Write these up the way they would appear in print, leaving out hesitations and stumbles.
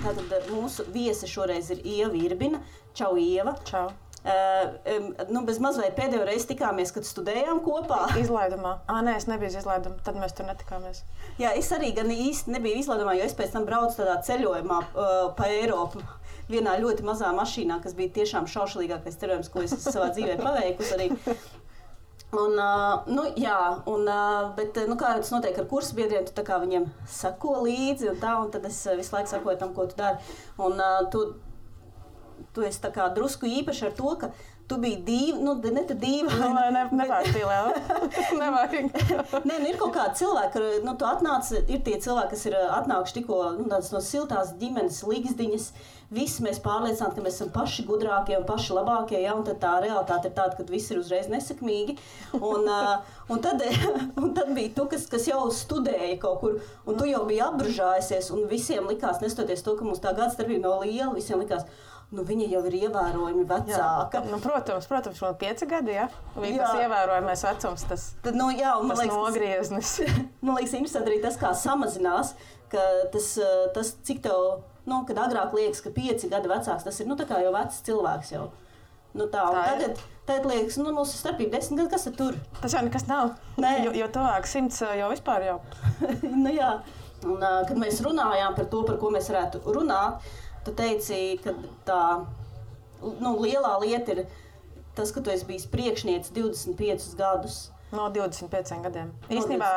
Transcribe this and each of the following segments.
Tātad mūsu viese šoreiz ir Ieva Irbina. Čau, Ieva. Čau. Bez mazliet pēdējo reizi tikāmies, kad studējām kopā. Izlaidumā. Nē, es nebiju izlaidumā, tad mēs tur netikāmies. Jā, es arī gan īsti nebiju izlaidumā, jo es pēc tam braucu tādā ceļojumā pa Eiropu. Vienā ļoti mazā mašīnā, kas bija tiešām šaušalīgākais ceļojums, ko es savā dzīvē paveikusi arī. Bet kā tas notiek ar kursabiedriem, tu tā kā viņiem sako līdzi un tad es visu laiku sakoju tam, ko tu dari. Un tu esi tā kā drusku īpaši ar to, ka tu biji Nē, ir kaut kādi cilvēki, tu atnāc, ir tie cilvēki, kas ir atnākuši tikko tādas no siltās ģimenes līgzdiņas. Visi mēs pārliecināti, ka mēs esam paši gudrākie un paši labākie, ja, un tad tā realitāte ir tāda, ka visi ir uzreiz nesekmīgi. Un tad bija tu, kas jau studēja kaut kur, un tu jau biji apbružājusies, un visiem likās, nestoties to, ka mums tā gadstarpība nav liela, visiem likās, viņa jau ir ievērojami vecāka. Jā, protams, man 5 gadi, ja? Tas ievērojamais vecums, tas nogrieznis. Man liekas, interesanti arī tas, kā samazinās, ka tas cik tev, kad agrāk liekas, ka 5 gadi vecāks, tas ir, tā kā jau vecs cilvēks jau. Tagad liekas, mūsu starpība 10 gadi, kas ir tur? Tas jau nekas nav, jo tuvāk 100 jau vispār jau. Jā, un kad mēs runājām par to, par ko mēs varētu runāt, tu teici, ka tā lielā lieta ir tas, ka tu esi bijis priekšniece 25 gadus. No 25 gadiem. Īstenībā,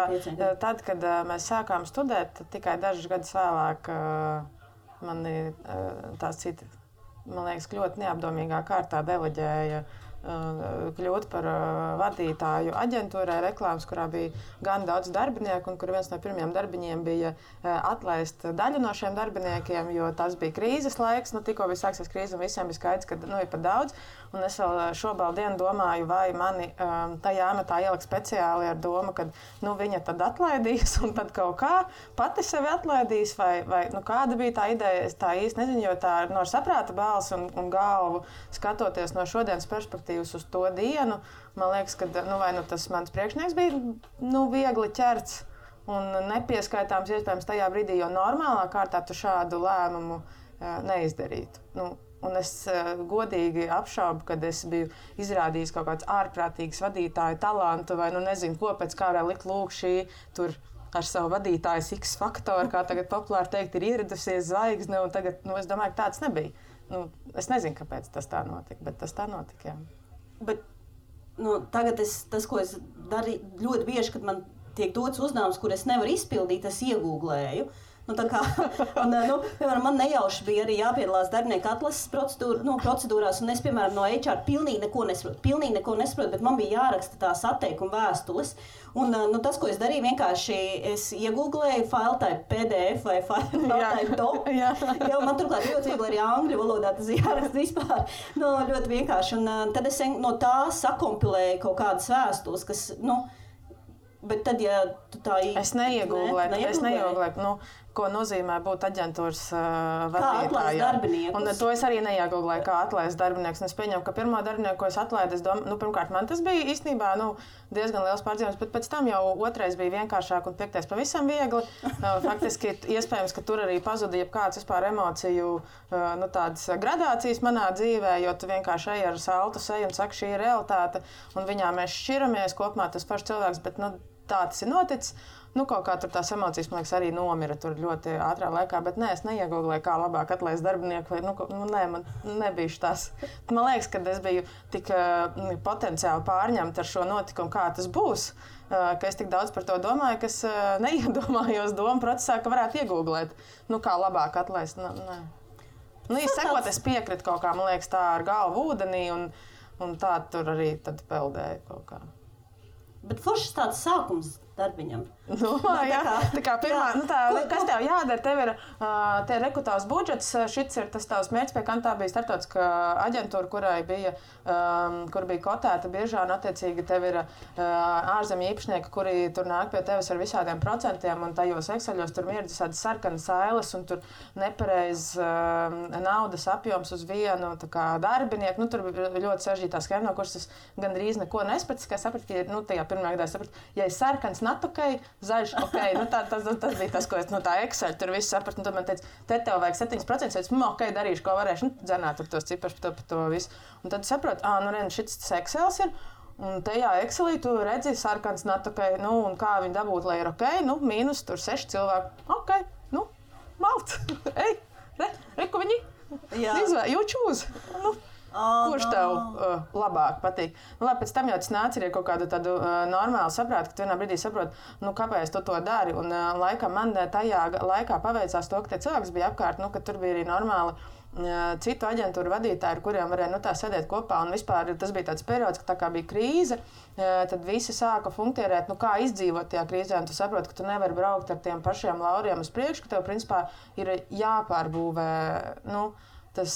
tad, kad mēs sākām studēt, tikai dažus gadus vēlāk mani tās citi, man liekas, ļoti neapdomīgā kārtā deleģēja kļūt par vadītāju aģentūrai reklāmas, kurā bija gan daudz darbinieku, un kur viens no pirmajiem darbiņiem bija atlaist daļu no šiem darbiniekiem, jo tas bija krīzes laiks, tikko bija sāksies krīze, un visiem bija skaidrs, ka ir pat daudz. Un es vēl šobrīd dienu domāju, vai mani tajā amatā ielikt speciāli ar domu, ka viņa tad atlaidīs, un tad kaut kā pati sevi atlaidīs, vai kāda bija tā ideja, es tā īsti nezinu, jo tā ir no saprāta balsi un galvu skatoties no šodienas perspektīvas uz to dienu, man liekas, ka tas mans priekšnieks bija viegli ķerts un nepieskaitāms iespējams tajā brīdī, jo normālā kārtā tu šādu lēmumu neizdarītu. Un es godīgi apšaubu, kad es biju izrādījis kaut kāds ārprātīgs vadītāju talantu vai nezinu, ko pēc kā vēl likt lūk šī tur ar savu vadītājas X faktoru, kā tagad populāri teikt, ir ieradusies zvaigzne, un tagad, es domāju, ka tāds nebija. Es nezinu, kāpēc tas tā notika, bet tas tā notika, jā. Bet tagad tas, ko es darīju ļoti bieži, kad man tiek dots uzdevums, kur es nevaru izpildīt, es iegūglēju. Piemēram, man nejauši bija arī jāpiedalās darbinieku atlases procedūrās, un es, piemēram, no HR pilnīgi neko nesaprotu, bet man bija jāraksta tās atteikuma vēstules. Un tas, ko es darīju, vienkārši es iegūglēju file type PDF vai file type doc. Man turklāt ļoti viegli arī angļu valodā tas jāraksta vispār. Ļoti vienkārši. Un tad es no tā sakompilēju kaut kādas vēstules, kas, bet tad, ja tu tā Es neiegūglēju, ko nozīmē būt aģentūras vadītājai. Un to es arī neiegūglēju, kā atlaist darbinieks. Es pieņemu, ka pirmo darbinieku, ko es atlaidu, pirmkārt, man tas bija īstenībā diezgan liels pārdzīvums, bet pēc tam jau otrais bija vienkāršāk un piektais pavisam viegli. Faktiski iespējams, ka tur arī pazuda jebkāds vispār emociju tādas gradācijas manā dzīvē, jo tu vienkārši ej ar saltu seju un saki, šī ir realitāte, un viņā mēs šķiramies kopumā tas pašs cilvēks, bet tā tas ir noticis. Kaut kā tur tās emocijas, man liekas, arī nomira tur ļoti ātrā laikā, bet es neiegūglēju, kā labāk atlaist darbinieku, vai, man nebija tās. Man liekas, ka es biju tik potenciāli pārņemta ar šo notikumu, kā tas būs, ka es tik daudz par to domāju, ka es neiedomājos domu procesā, ka varētu iegūglēt, kā labāk atlaist. Sekot, es piekritu kaut kā, man liekas, tā ar galvu ūdenī, un tā tur arī tad peldēju kaut kā. Bet foršs tāds sākums. darbiņam. Tā kā pirmā, kas tev jādara, tev ir te rekrutās budžets, šits ir tas tavs mērķis, pie kam tā bija starptautiskā aģentūra, kur bija kotēta biržā, un attiecīgi tev ir ārzemju īpašnieki, kuri tur nāk pie tevis ar visādiem procentiem, un tajos Exceļos tur ir visādi sarkanas ailes, un tur nepareiz naudas apjoms uz vienu darbinieku. Nu, tur bija ļoti sarežģītā schēma, no kuras es gandrīz neko nesapratu, ka sapratu, ka tajā pirmā gadā sapratu, ja ir sarkans, not ok, zaļš ok. Tas bija tas, ko es no tā Excel tur visu sapratu. Un tad man teica, te tev vajag 7%, es ok, darīšu, ko varēšu. Dzenāt tur tos ciparus par to visu. Un tad saprotu, šis Excels ir. Un tajā Excelī tu redzi sarkans, not ok. Un kā viņi dabūt, lai ir ok. Mīnus tur 6 cilvēki. Ok, malt. Ej, reku viņi. You choose. Kurš tev labāk patīk? Labi, pēc tam jau tas nāca ar kaut kādu tādu normālu saprātu, ka tu vienā brīdī saproti, kāpēc tu to dari. Un laikam man tajā laikā paveicās to, ka tie cilvēki bija apkārt, ka tur bija arī normāli citu aģentūru vadītāji, ar kuriem varēja tā sēdēt kopā. Un vispār tas bija tāds periods, ka tā kā bija krīze, tad visi sāka funkcionēt, kā izdzīvot tajā krīzē. Un tu saproti, ka tu nevari braukt ar tiem pašiem lauriem uz priekšu, ka tev principā ir jāpārbūvē, tas,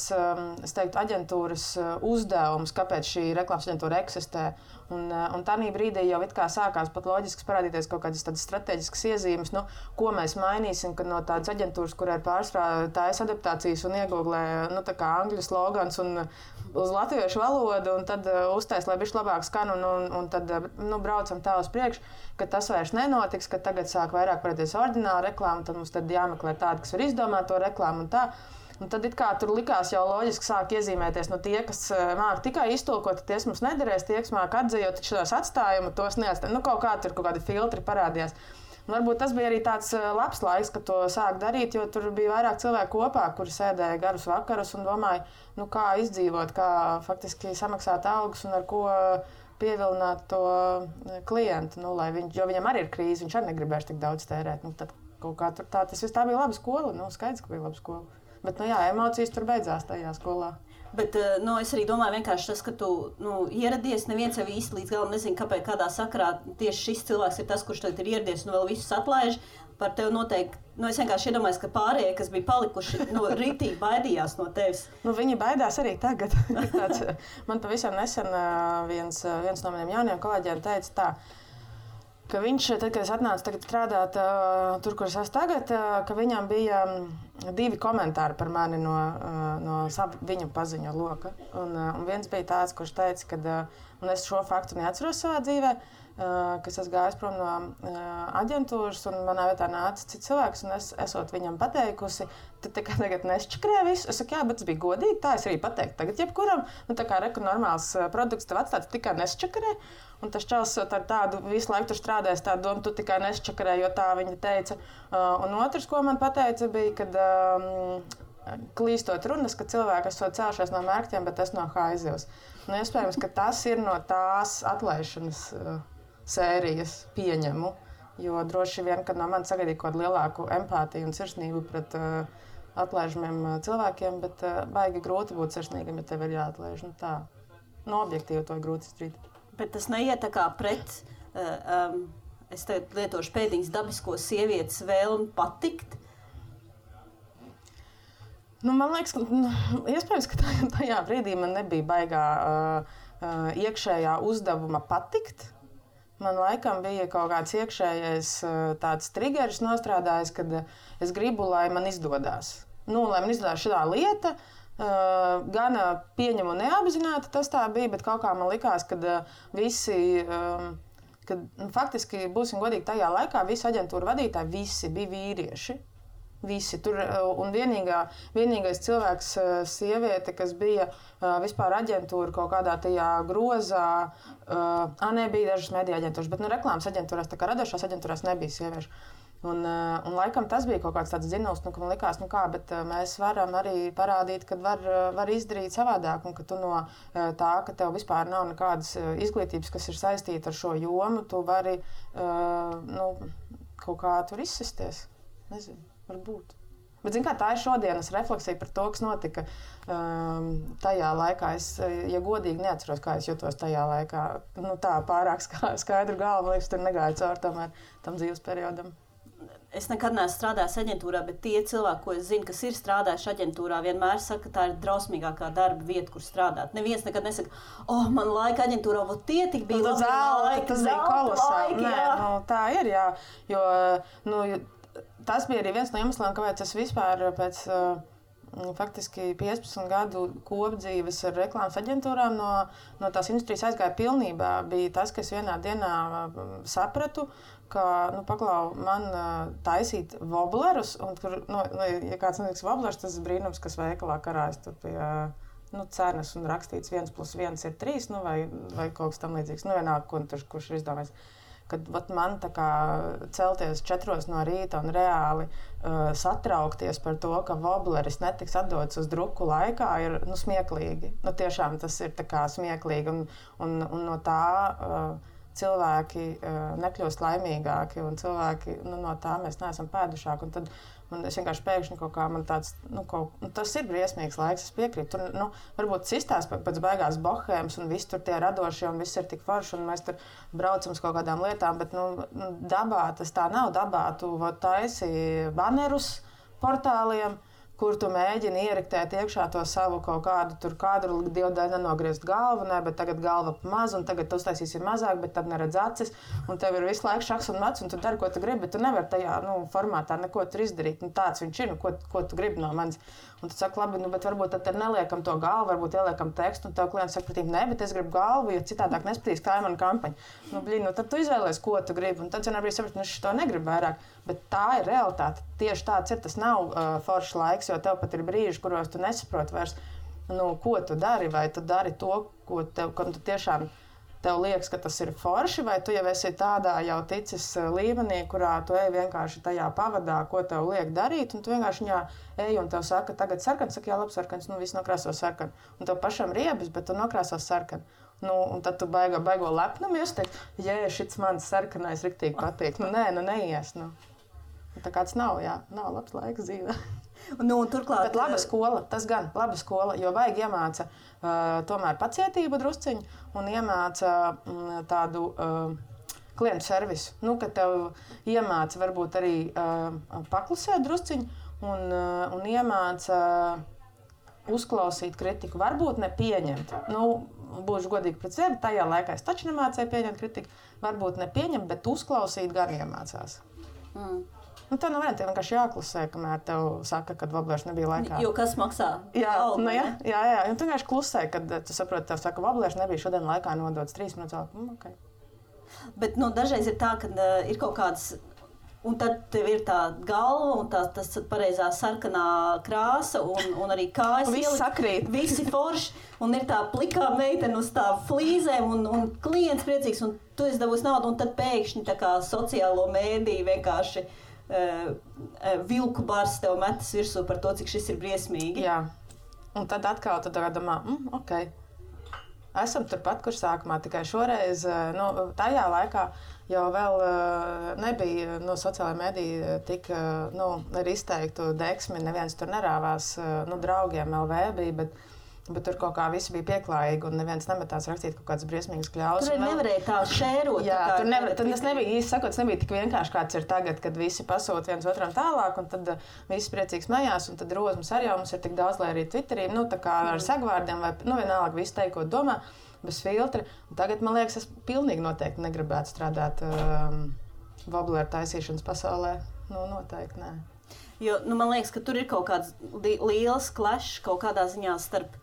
es teiktu, aģentūras uzdevums, kāpēc šī reklāmas aģentūra eksistē. Un tādā brīdī jau it kā sākās pat loģiski parādīties kaut kādas tādas strateģiskas iezīmes, ko mēs mainīsim, kad no tādas aģentūras, kurā ir pārsvarā taisa adaptācijas un iegooglē, tā kā angļu slogans un uz latviešu valodu, un tad uztais, lai bišķi labāk skan, un tad braucam tā uz priekšu, ka tas vairs nenotiks, ka tagad sāk vairāk parādīties ordināla reklāma, tad mums tad jāmeklē tāda, kas var izdomāt to reklāmu un tā. Un tad tur likās jau loģiski sāk iezīmēties tie, kas māk tikai iztulkot, tie mums nederēs, tie, kas māk atzējot šos atstājumus, tos neatstāja. Kaut kādi filtri parādījās. Un varbūt tas bija arī tāds labs laiks, kad to sāk darīt, jo tur bija vairāk cilvēku kopā, kuri sēdēja garus vakarus un domāja, kā izdzīvot, kā faktiski samaksāt algas un ar ko pievilināt to klientu. Jo viņam arī ir krīze, viņš arī negribēs tik daudz tērēt. Tad kaut kā tur tā bija laba skola, skaidrs, ka bija laba skola. Bet, emocijas tur beidzās tajā skolā. Bet es arī domāju, vienkārši tas, ka tu ieradies, neviens jau īsti līdz galam nezina, kāpēc kādā sakarā tieši šis cilvēks ir tas, kurš tagad ir ieradies un vēl visus atlaiž. Par tevi noteikti, es vienkārši iedomājos, ka pārējie, kas bija palikuši, rītīgi baidījās no tevis. Viņi baidās arī tagad. Man pavisam nesen viens no maniem jauniem kolēģiem teica tā, ka viņš, tad, kad es atnācu strādāt tur, kur es esmu tagad, ka viņam bija 2 komentāri par mani no viņu paziņu loka. Un viens bija tāds, kurš teica, ka, un es šo faktu neatceros savā dzīvē, ka es gāju prom no aģentūras, un manā vietā nāca cits cilvēks, un es esot viņam pateikusi, tad tagad nesčakrē visu. Es saku, jā, bet tas bija godīgi, tā es arī pateiktu. Tagad jebkuram, normāls produkts tev atstāts, tikai nesčakrē. Un tas čels ar tādu visu laiku tur strādājis, tādu domu, tu tikai nesčakarē, jo tā viņa teica. Un otrs, ko man pateica, bija, kad klīstot runas, ka cilvēki esot cēlušies no mērķiem, bet es no haizivs. Iespējams, ka tas ir no tās atlaišanas sērijas pieņemu, jo droši vien, kad no manis sagaidīja kaut kādu lielāku empātiju un sirsnību pret atlaižamiem cilvēkiem, bet baigi grūti būt sirsnīgam, ja tev ir jāatlaiž. Objektīvi to ir grūti izdarīt. Bet tas neiet tā kā pret, es tagad lietošu pēdiņas dabisko sievietes vēlmi patikt? Man liekas, ka iespējams, ka tajā brīdī man nebija baigā iekšējā uzdevuma patikt. Man laikam bija kaut kāds iekšējais tāds trigeris nostrādājis, kad es gribu, lai man izdodas. Lai man izdodas šādā lieta, gan pieņemu neapzināti tas tā bija, bet kaut kā man likās, ka visi, faktiski, būsim godīgi, tajā laikā visi aģentūra vadītāji, visi bija vīrieši. Visi tur, un vienīgais cilvēks, sieviete, kas bija vispār aģentūra kaut kādā tajā grozā, nebija dažas mediju aģentūras, bet reklāmas aģentūrās, tā kā radošās aģentūrās nebija sieviešu. Un laikam tas bija kaut kāds tāds dzinuls, ka man likās, bet mēs varam arī parādīt, ka var izdarīt savādāk, un ka tu no tā, ka tev vispār nav nekādas izglītības, kas ir saistīta ar šo jomu, tu vari kaut kā tur izsisties. Nezinu. Varbūt. Bet, zin kā, tā ir šodienas refleksija par to, kas notika tajā laikā. Es, ja godīgi, neatceros, kā es jutos tajā laikā. Nu, tā pārāk skaidru galvu, liekas, tur negāju cauri tomēr tam dzīves periodam. Es nekad neesmu strādājis aģentūrā, bet tie cilvēki, ko es zinu, kas ir strādājuši aģentūrā, vienmēr saka, ka tā ir drausmīgākā darba vieta, kur strādāt. Neviens nekad nesaka, man laika aģentūrā, tie tik bija labi laiki. Tas bija kolosāli. Nē, nu, tā ir, jā. Jo, tas bija arī viens no iemesliem, kāpēc es vispār pēc faktiski 15 gadu kopdzīves ar reklāmas aģentūrām no tās industrijas aizgāja pilnībā. Bija tas, ka es vienā dienā sapratu, ka, paklau, man taisīt woblerus, un tur, ja kāds netiks woblerus, tas ir brīnums, kas veikalā karājas tur pie cenas un rakstīts 1+1 ir 3, vai kaut kas tam līdzīgs. Vienalga, kurš ir izdomājis. Kad man tā kā celties 4 no rīta un reāli satraukties par to, ka wobleris netiks atdots uz druku laikā, ir smieklīgi. Tiešām tas ir tā kā smieklīgi, un no tā cilvēki nekļūst laimīgāki, un cilvēki no tā mēs neesam pēdušāki. Un tad es vienkārši pēkšņi kaut kā man tāds, tas ir briesmīgs laiks, es piekrītu. Tur, varbūt cistās pēc beigās bohēmas, un viss tur tie radošie, un viss ir tik forši, un mēs tur braucam uz kaut kādām lietām, bet, dabā tas tā nav. Dabā tu taisi banerus portāliem, kur tu mēģini ieriktēt iekšā to savu kaut kādu, tur kādu dievdēļ nenogriezt galvu, bet tagad galva pa mazu, un tagad tu uztaisīsi mazāk, bet tad neredz acis, un tev ir visu laiku šaks un mats, un tu dari, ko tu gribi, bet tu nevari tajā formātā neko tur izdarīt. Tāds viņš ir, ko tu gribi no manis. Un tu saki, labi, bet varbūt tad neliekam to galvu, varbūt ieliekam tekstu, un tev klients saka, nē, bet es gribu galvu, jo citādāk nespatīs kā mana kampaņa. Tad tu izvēlies, ko tu gribi, un tad vienā brīdī saprati, es to negribu vairāk. Bet tā ir realitāte. Tieši tāds ir. Tas nav foršs laiks, jo tev pat ir brīži, kuros tu nesaproti vairs, ko tu dari, vai tu dari to, kam tu tiešām tev liekas, ka tas ir forši, vai tu jau esi tādā jau ticis līmenī, kurā tu ej vienkārši tajā pavadā, ko tev liek darīt, un tu vienkārši viņā ej un tev saka, tagad sarkans, saka, jā, labi, sarkans, viss nokrāso sarkanu. Un tev pašam riebis, bet tu nokrāso sarkanu. Un tad tu baigo lepnumu, jūs teikt, šits mans sarkanais riktīgi patīk. Neies. Tā kāds nav labs laiks dzīvē. Turklāt, bet laba skola, tas gan laba skola, jo vajag iemāca tomēr pacietību drusciņu un iemāca tādu klientu servisu. Kad tev iemāca varbūt arī paklusēt drusciņu un iemāca uzklausīt kritiku, varbūt nepieņemt. Būšu godīgi pret sevi, tajā laikā es taču nemācēju pieņemt kritiku, varbūt nepieņemt, bet uzklausīt gan iemācās. Tā nav vienkārši vienkārši jāklusē, kamēr tev saka, ka woblers nebija laikā. Jo kas maksā? Jā. Un tu vienkārši klusē, kad tu saproti, tev saka, woblers nebija šodien laikā nodots 3 minūtes. Okay. Bet dažreiz ir tā, ka ir kaut kādas, un tad tev ir tā galva un tas pareizā sarkanā krāsa un arī kājas. Viss sakrīt. Visi forši. Un ir tā plikā meitene uz tā flīzēm un klients priecīgs, un tu esi dabūs naudu, un tad pēkšņi tā kā sociālo mēdīju vienkārši vilku bars tev metas virsū par to, cik šis ir briesmīgi. Jā. Un tad atkal tu domā, ok. Esam turpat, kur sākumā, tikai šoreiz, tajā laikā jau vēl nebija sociālajā mediju tik ar izteiktu deksmi, neviens tur nerāvās, draugiem LV bija, bet tur kaut kā visi bija pieklājīgi un neviens nemetās rakstīt kaut kādas briesmīgas kļaus. Tur nevarēja tā šērot. Jā, tas nebija, īsti sakot, tas nebija tik vienkārši, kāds ir tagad, kad visi pasūta viens otram tālāk, un tad visi priecīgi smējās, un tad rozmas arī jau mums ir tik daudz, lai arī Twitterī, tā kā ar sagvārdiem, vai vienalga visi teikt, ko domā, bez filtra. Un tagad, man liekas, es pilnīgi noteikti negribētu strādāt wobleru taisīšanas pasaulē. Noteikti nē. Jo, man liekas, ka tur ir kaut kāds liels clash kaut kādā ziņā starp.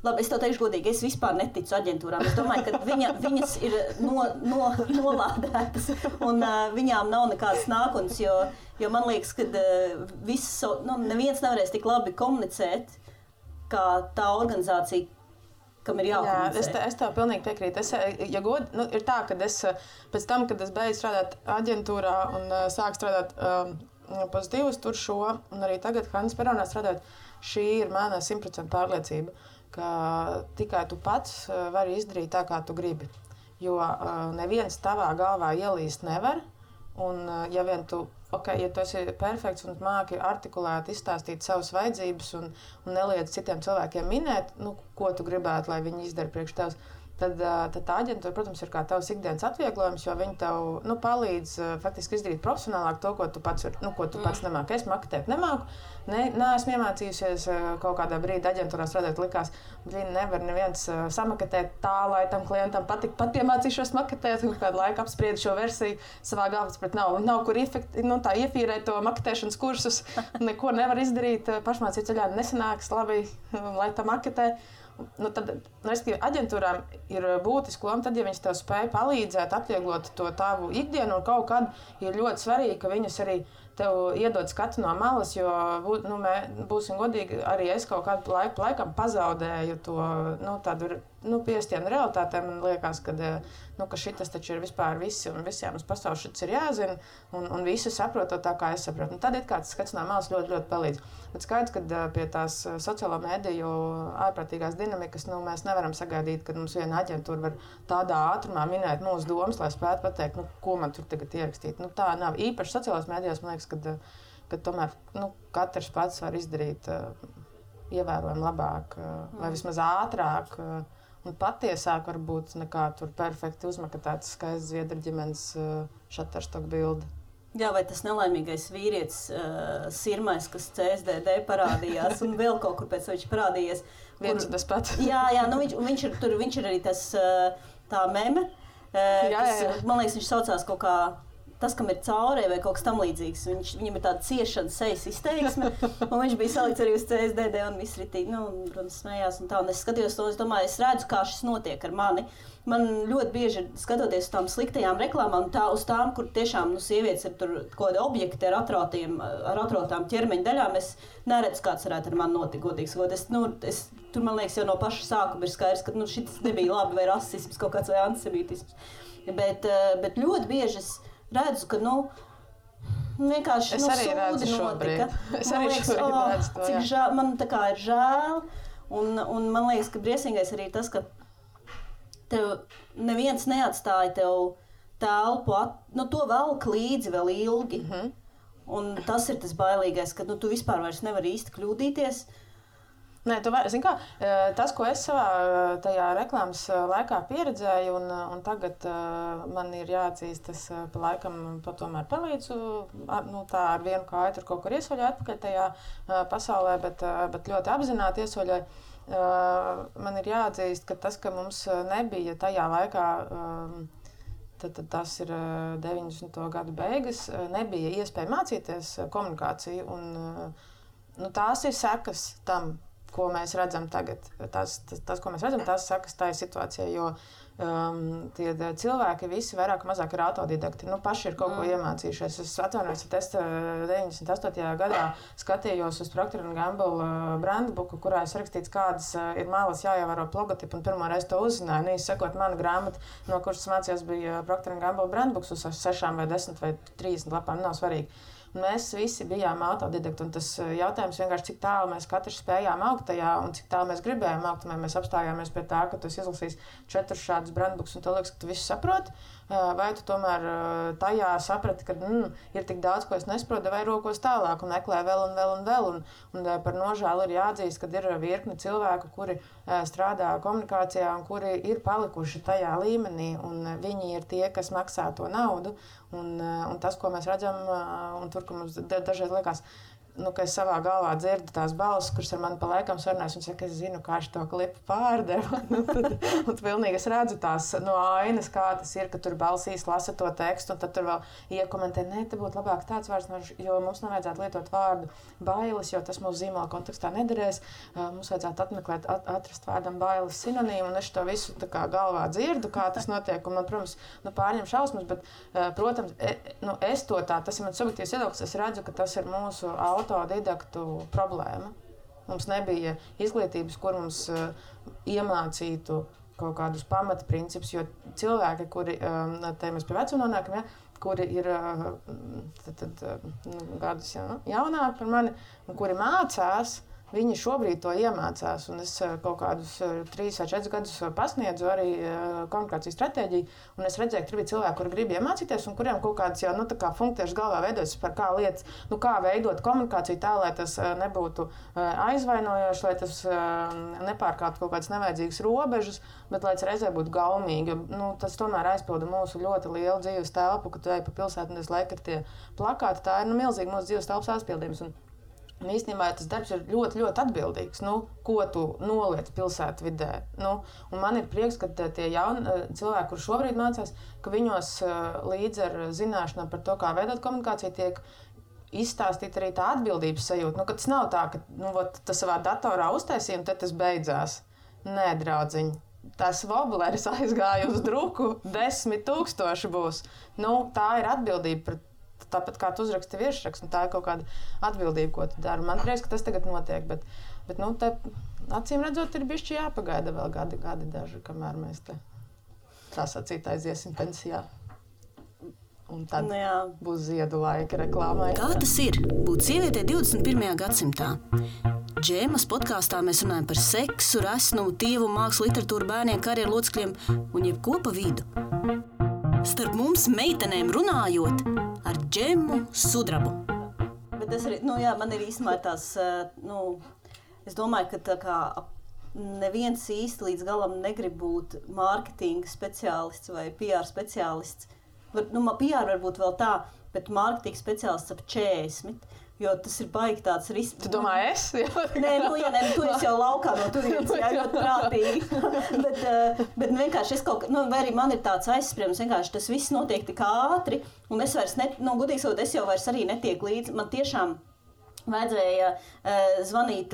Labi, es tev teikšu godīgi, es vispār neticu aģentūrām. Es domāju, ka viņas ir nolādētas un viņām nav nekādas nākotnes, jo man liekas, ka neviens nevarēs tik labi komunicēt, kā tā organizācija, kam ir jākomunicē. Jā, es tev pilnīgi piekrītu. Ir tā, ka es pēc tam, kad es beidzu strādāt aģentūrā un sāku strādāt pozitīvus tur šo, un arī tagad Hannes Peronā strādāt, šī ir mana 100% pārliecība, ka tikai tu pats vari izdarīt tā, kā tu gribi. Jo neviens tavā galvā ielīst nevar, un ja vien tu ja tu esi perfekts un māki artikulēt, izstāstīt savas vajadzības un neliedz citiem cilvēkiem minēt, ko tu gribētu, lai viņi izdara priekš tevis, tad tā aģentūra, protams, ir kā tavs ikdienas atvieglojums, jo viņi tev palīdz faktiski izdarīt profesionālāk to, ko tu pats nemāki. Es maketēt nemāku. Neesmu iemācījusies kaut kādā brīdī aģentūrā strādāt, likās, viņi nevar neviens samaketēt tā, lai tam klientam patīk. Pat iemācīšos maketēt, un kādu laiku apspriedu šo versiju savā galvā, bet nav kur iefīrēt to maketēšanas kursus. Neko nevar izdarīt, pašmācību ceļā nesanāks labi, lai tā maketē. Tad aģentūrām ir būtiski loma, tad, ja viņas tev spēj palīdzēt, atvieglot to tavu ikdienu, un kaut kad ir ļoti svarīgi, ka viņas arī tev iedod skatu no malas, jo, būsim godīgi, arī es kaut kādu laikam pazaudēju to, tādu, piestienu realitātēm. Man liekas, ka šitas taču ir vispār visi, un visiem uz pasaules šitas ir jāzina, un visi saprot tā, kā es saprotu. Tad ir kāds skats no malas ļoti, ļoti palīdz. Bet skaidrs, ka pie tās sociālo mediju ārprātīgās dinamikas, mēs nevaram sagaidīt, ka mums viena aģentūra var tādā ātrumā minēt mūsu domas, lai spētu pateikt, ko man tur tagad ierakstīt. Tā nav īpaši sociālās medijās, man liekas, ka tomēr katrs pats var izdarīt ievērojami labāk vai vismaz ātrāk un patiesāk varbūt nekā tur perfekti uzmakatēts skaists Zviedru ģimenes Shutterstock bilde. Jā, vai tas nelaimīgais vīrietis Sirmais, kas CSDD parādījās un vēl kaut kur pēc viņš parādījies. Viens un tas pats. Jā, viņš ir arī tas tā meme, kas, man liekas, viņš saucās kaut kā tas, kam ir caurē vai kaut kas tam līdzīgs. Viņam ir tāda ciešana sejas izteiksme, un viņš bija salikts arī uz CSDD un viss ritīgi, protams, smējās un tā. Un es skatījos to, es domāju, es redzu, kā šis notiek ar mani. Man ļoti bieži skatoties uz tām sliktajām reklāmām, uz tām, kur tiešām sievietes ir tur kaut kādi objekti ar atrotām ķermeņa daļām, es neredzu, kāds varētu ar mani notikt, godīgi sakot. Tur, man liekas, jau no paša sākuma ir skaidrs, ka šis nebija labi vai rasisms kaut kāds vai antisemītisms. Bet ļoti bieži es redzu, ka vienkārši es arī redzu šobrīd. Es arī šobrīd redzu to, cik žēl, man tā kā ir žēl, un man liekas, ka briesmīgais arī tas, ka tev neviens neatstāja tev telpu, to velk līdzi vēl ilgi. Un tas ir tas bailīgais, ka tu vispār vairs nevari īsti kļūdīties. Nē, zini kā, tas, ko es savā tajā reklāmas laikā pieredzēju, un tagad man ir jāatzīst, tas pa laikam tomēr palīdzu, tā ar vienu kāju tur kaut kur iesoļoju atpakaļ tajā pasaulē, bet ļoti apzināti iesoļoju. Man ir jāatzīst, ka tas, ka mums nebija tajā laikā, tad tas ir 90. gadu beigas, nebija iespēja mācīties komunikāciju, un tās ir sekas tam, ko mēs redzam tagad. Tas, ko mēs redzam, tās sakas tā ir situācija, jo tie cilvēki visi vairāk mazāk ir autodidakti. Paši ir kaut ko iemācījušies. Es atvainojos, ka es 98. gadā skatījos uz Procter & Gamble brandbuku, kurā es rakstīts, kādas ir malas jāievēro logotipu, un pirmo reizi to uzzināju. Sekot mana grāmata, no kuras mācījos, bija Procter & Gamble brandbuks uz 6 vai 10 vai 30 lapām, nav svarīgi. Mēs visi bijām autodidakti, un tas jautājums vienkārši, cik tālu mēs katrs spējām augt tajā, un cik tālu mēs gribējām augt, un mēs apstājāmies pie tā, ka tu izlasīsi 4 šādus brandbuks, un tu liekas, ka tu visu saproti, vai tu tomēr tajā saprati, ka ir tik daudz, ko es nesaprotu, vai rokos tālāk, un meklē vēl un vēl un vēl, un par nožēlu ir jāatzīst, ka ir virkni cilvēku, kuri strādā komunikācijā, un kuri ir palikuši tajā līmenī, un viņi ir tie, kas maksā to naudu, un tas, ko mēs redzam, un tur, ka mums dažreiz liekas, ka es savā galvā dzirdu tās balsis, kuras ar mani pa laikam sarunājas un saka, es zinu, kā šo klipu pārdeva. Un pilnīgi es redzu tās no ainas, kā tas ir, ka tur balsīs lasa to tekstu, un tad tur vēl iekomentē, te būtu labāk tāds vārds, jo mums nevajadzētu lietot vārdu bailes, jo tas mūsu zīmola kontekstā nederēs. Mums vajadzētu atrast vārdam bailes sinonīmu, un es to visu tā kā galvā dzirdu, kā tas notiek, un man, protams, pārņem šausmas, bet, protams, es to tā, tas ir mans subjektīvs viedoklis, es redzu, ka tas ir mūsu autodidaktu problēma. Mums nebija izglītības, kur mums iemācītu kaut kādus pamatprincipus, jo cilvēki, kuri, te mēs pie vecuma nonākam, kuri ir gadus jaunāki par mani, un kuri mācās, Viņi šobrīd to iemācās, un es kaut kādus 3 vai 4 gadus pasniedzu arī komunikācijas stratēģiju, un es redzēju, ka tur bija cilvēki, kuri grib iemācīties, un kuriem kaut kādas jau funkcijas galvā veidojas par kā lietas, kā veidot komunikāciju tā, lai tas nebūtu aizvainojoši, lai tas nepārkāptu kaut kādas nevajadzīgas robežas, bet lai tas reizē būtu gaumīgi. Tas tomēr aizpilda mūsu ļoti lielu dzīves telpu, kad tu ej pa pilsētu, un es laiku ir tie plakāti, tā ir milzīgi mūsu dzīves telpas aizpildījums. Un īstenībā tas darbs ir ļoti, ļoti atbildīgs, ko tu noliec pilsētvidē. Un man ir prieks, ka tie jauni cilvēki, kuri šobrīd mācās, ka viņos līdz ar zināšanām par to, kā veidot komunikāciju, tiek izstāstīta arī tā atbildības sajūta. Ka tas nav tā, ka tas savā datorā uztaisīja un tad tas beidzās. Nē, draudziņ. Tas wobleris aizgāja uz druku, 10,000 būs. Tā ir atbildība pret. Tāpat kā tu uzraksti virsrakstu, tā ir kaut kāda atbildība, ko tu dari. Man liekas, ka tas tagad notiek, bet te acīm redzot, ir bišķi jāpagaida vēl gadi daži, kamēr mēs te tā sacīt aiziesim pensijā. Un tad būs ziedu laika reklāmai. Kā tas ir būt sievietei 21. gadsimtā? Džēmas podkāstā mēs runājam par seksu, resnumu, tievumu, mākslu, literatūru, bērniem, karjeru locekļiem un jebko pa vidu. Starp mums meitenēm runājot ar Džemu Sudrabu. Bet tas arī, man ir īstenībā tās, es domāju, ka tā kā neviens īsti līdz galam negrib būt mārketinga speciālists vai PR speciālists. PR varbūt vēl tā, bet mārketinga speciālists ap 40. Jo tas ir baigi tāds risks. Tu domā, es? Nē, tu esi jau laukā no turienes, ļoti prātīgi. bet vienkārši es kaut kā, vai arī man ir tāds aizspriedums, vienkārši tas viss notiek tik ātri, un es vairs, gudīgi sakot, es jau vairs arī netieku līdzi. Man tiešām vajadzēja zvanīt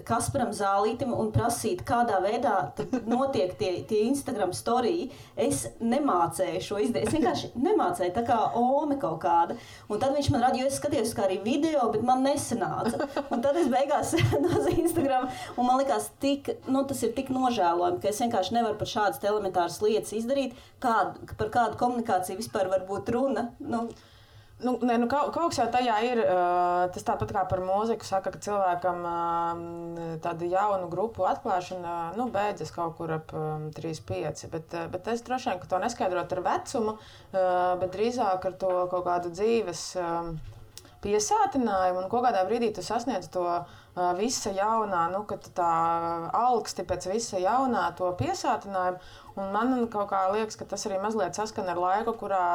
Kasparam Zālītim un prasīt, kādā veidā notiek tie Instagram storiji. Es nemācēju šo izdarīt. Es vienkārši nemācēju, tā kā ome kaut kāda. Un tad viņš man rāda, jo es skatījos kā arī video, bet man nesanāca. Un tad es beigās no Instagram, un man likās, tas ir tik nožēlojami, ka es vienkārši nevaru par šādas elementāras lietas izdarīt, par kādu komunikāciju vispār var būt runa. Kaut kas jau tajā ir, tas tāpat kā par mūziku saka, ka cilvēkam tādu jaunu grupu atklāšana beidzas kaut kur ap 3-5, bet es droši vien, ka to neskaidrot ar vecumu, bet drīzāk ar to kaut kādu dzīves piesātinājumu, un kaut kādā brīdī tu sasniedz to visa jaunā, ka tā alksti pēc visa jaunā to piesātinājumu, un man kaut kā liekas, ka tas arī mazliet saskan ar laiku, kurā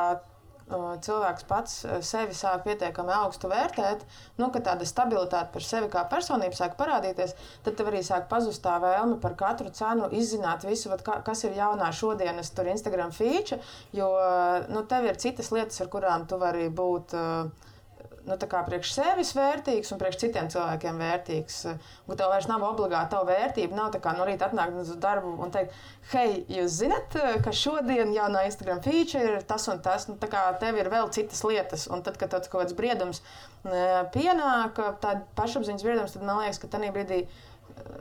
cilvēks pats sevi sāk pietiekami augstu vērtēt, ka tāda stabilitāte par sevi kā personību sāk parādīties, tad tev arī sāk pazust tā vēlme par katru cenu izzināt visu, kas ir jaunā šodienas tur Instagram feature, jo tev ir citas lietas, ar kurām tu vari būt priekš sevis vērtīgs un priekš citiem cilvēkiem vērtīgs. Un tev vairs nav obligāti tava vērtība, nav tā kā no rīta atnākt uz darbu un teikt, hei, jūs zinat, ka šodien jaunā Instagram feature ir tas un tas, tā kā tev ir vēl citas lietas. Un tad, kad tev kaut kāds briedums pienāk, tāda pašapziņas briedums, tad man liekas, ka tajā brīdī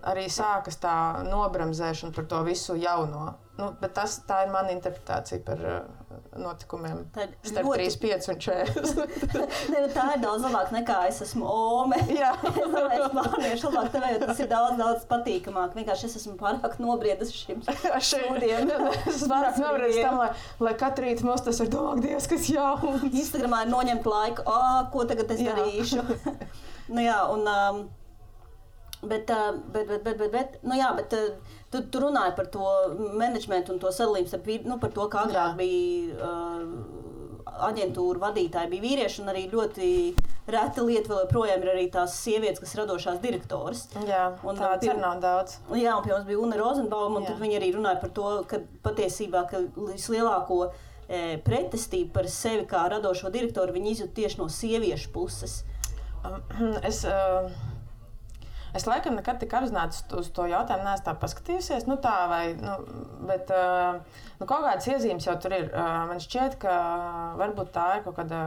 arī sākas tā nobramzēšana par to visu jauno. Bet tā ir mana interpretācija par notikumiem starp 35 un 40. Tā ir daudz labāk nekā es esmu ome. Es domāju, es plāniešu labāk tev, jo tas ir daudz patīkamāk. Vienkārši es esmu pārāk nobriedis šim šodien. Es pārāk nobriedis tam, lai katru rītu mums tas ir domāk, Dievs, kas jauns. Instagramā ir noņemt laiku, ko tagad es darīšu. Bet tu runāji par to menedžmentu un to sadalījumu par to, kā agrāk bija aģentūra vadītāji bija vīrieši, un arī ļoti reta lieta vēl joprojām ir arī tās sievietes, kas radošās direktoras. Jā, tāds ir nav daudz. Jā, un pie mums bija Una Rozenbauma, un tad viņi arī runāja par to, ka patiesībā vislielāko pretestību par sevi kā radošo direktoru viņi izjūt tieši no sieviešu puses. Es laikam nekad tik apzināti uz to jautājumu neesmu tā paskatījusies, bet kaut kādas iezīmes jau tur ir. Man šķiet, ka varbūt tā ir kaut kāda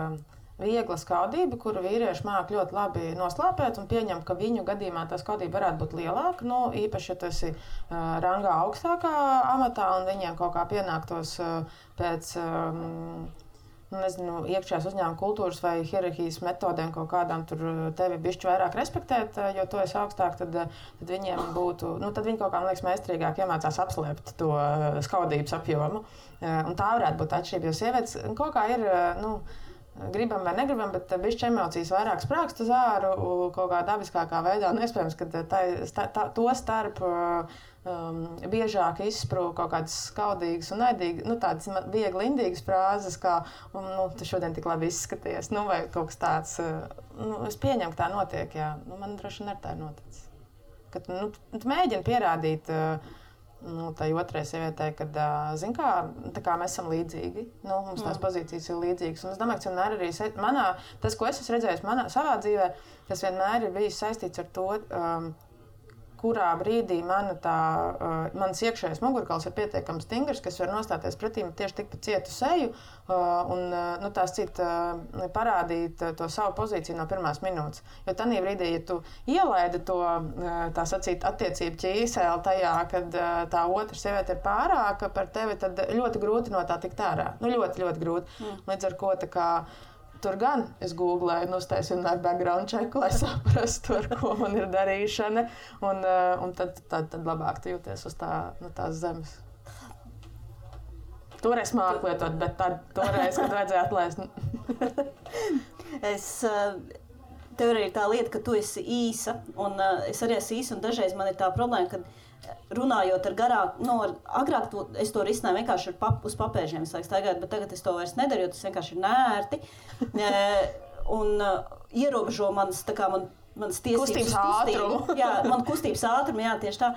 viegla skaudība, kuru vīrieši māk ļoti labi noslāpēt un pieņem, ka viņu gadījumā tā skaudība varētu būt lielāka, īpaši, ja tu esi rangā augstākā amatā un viņiem kaut kā pienāktos pēc nezinu, iekšējās uzņēmuma kultūras vai hierarhijas metodēm kaut kādām tur tevi bišķi vairāk respektēt, jo tu esi augstāk, tad viņiem būtu, tad viņi kaut kā, man liekas, meistrīgāk iemācās apslēpt to skaudības apjomu. Un tā varētu būt atšķirība, jo sievietes kaut kā ir, gribam vai negribam, bet bišķi emocijas vairāk sprākst uz āru kaut kā dabiskākā veidā. Un iespējams, ka to starp biežāk izsprūk kaut kādas skaudīgas un naidīgas, tādas viegli indīgas frāzes, kā tu šodien tik labi izskaties, vai kaut kas tāds. Es pieņemu, ka tā notiek, jā. Man droši vien ar tā ir noticis. Kad tu mēģini pierādīt tai otrai sievietei, kad, zin kā, tā kā mēs esam līdzīgi, mums tās pozīcijas ir līdzīgas. Un es domāju, ka vienmēr arī tas, ko es esmu redzējis savā dzīvē, tas vienmēr ir bijis saistīts ar to, kurā brīdī mans iekšējais mugurkauls ir pietiekami stingrs, kas var nostāties pretī tieši tikpat cietu seju un tās parādīt to savu pozīciju no pirmās minūtes. Jo tanī brīdī, ja tu ielaidi to, tā sacīt, attiecību ķīseli tajā, kad tā otra sieviete ir pārāka par tevi, tad ļoti grūti no tā tikt ārā. Ļoti, ļoti grūti. Līdz ar ko tā kā tur gan es googlēju, uztaisīju vienmēr background checku, lai saprastu, ar ko man ir darīšana. Un tad labāk tu jūties uz tās zemes. Toreiz māku lietot, bet toreiz, kad vajadzēja atlaist. Tev arī ir tā lieta, ka tu esi īsa, un es arī esmu īsa, un dažreiz man ir tā problēma, ka runājot ar garāku, agrāk es to risināju vienkārši uz papēžiem, staigāt, bet tagad es to vairs nedaru, jo tas vienkārši ir nērti. Un ierobežo manas tiesības kustības ātrumu. Jā, man kustības ātrumu, jā, tieši tā.